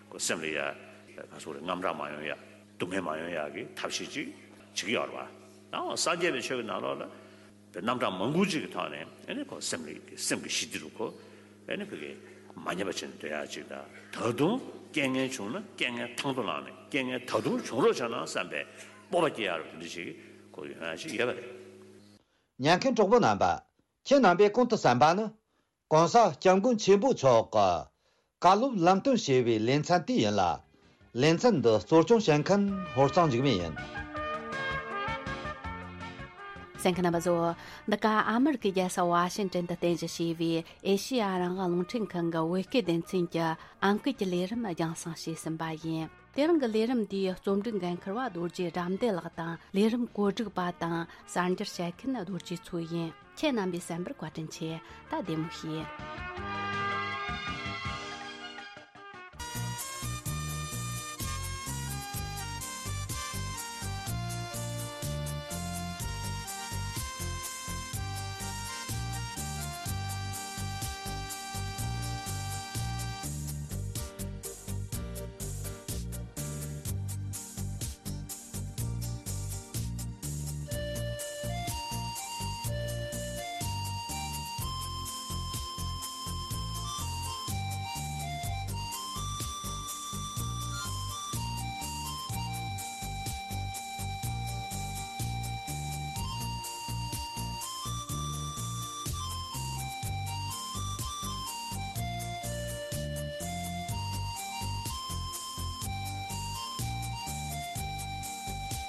ཁོ་སེམས་ལ་ཡ་ག་སོགས་རེད། དངངས་སྐྲག་མ་ཡོང་ཡ། སྡུག་བསྔལ་མ་ཡོང་ཡ་གི་ཐབས་ཤེས་ཅིག་བྱེད་ཀྱི་ཡོད་རེད་བ། ད་འོ་སངས་རྒྱས་པའི་ཆོས་ཀྱི་ནང་ལོགས་ལ་པའི་རྣམ་གྲངས་མང་པོ་ཅིག་གི་ཐོག་ནས་ཨེ་ནི་ཁོ་སེམས་ལ་སེམས་ཀྱི་ཞི་བདེ་རུ་ཁོ་ཨེ་ནི་ཕ་གི་མ་ཉམས་པ་བྱས་ནས་སྡོད་ཡ་ཅིག་དང་། ད་དུང་རྐྱེན་ངན་བྱུང་ན་རྐྱེན་ངན་དང་དུ་བླངས་ནས། རྐྱེན་ངན་ད་དུང་བྱུང་རོགས་བྱས་ན་བསམ་པའི་སྤོབས་པ་སྐྱེ་ཡ་རུ་དེ་འདྲ་ཞིག་ཁོ་ཡོང་ཡ་ཞིག་ཡོད་པ་རེད། ཉན་མཁན་གྲོགས་པོ་རྣམ་པ། ཁྱེད་རྣམ་པས་གོང་དུ་གསན་པ་ནི། གོང་ས་སྐྱབས་མགོན་ཆེན་པོ་མཆོག་གི་བཀའ་སློབ་ལམ་སྟོན་ཞེས་པའི་ལེ་ཚན་དེ་ཡིན་ལ། ལེ་ཚན་འདི་གཙོ་སྐྱོང་བྱེད་མཁན་ཧོར་གཙང་འཇིགས་མེད་ཡིན། གསན་མཁན་རྣམ་པ་ཚོ། འདི་ག་ཨ་མེ་རི་ཀའི་རྒྱལ་ས་ཝ་ཤིང་ཏན་དུ་རྟེན་གཞི་བྱས་པའི་ཨེ་ཤེ་ཡ་རང་དབང་རླུང་འཕྲིན་ཁང་གི་བོད་སྐད་སྡེ་ཚན་གྱི་ཨང་ཀི་གི་ལས་རིམ་རྒྱང་སྲིང་བྱས་ཟིན་པ་ཡིན། དེ་རིང་གི་ལས་རིམ་འདིའི་རྩོམ་སྒྲིག་འགན་འཁུར་བ་རྡོ་རྗེ་དགྲ་འདུལ་ལགས་དང་། ལས་རིམ་བཀོད་སྒྲིག་པ་དང་གསར་འགྱུར་བཤད་མཁན་རྡོ་རྗེ་མཚོ་ཡིན། ཁྱེད་རྣམ་པས་གསན་པར་བཀའ་དྲིན་ཆེ། ད་བདེ་མོ་བྱོས།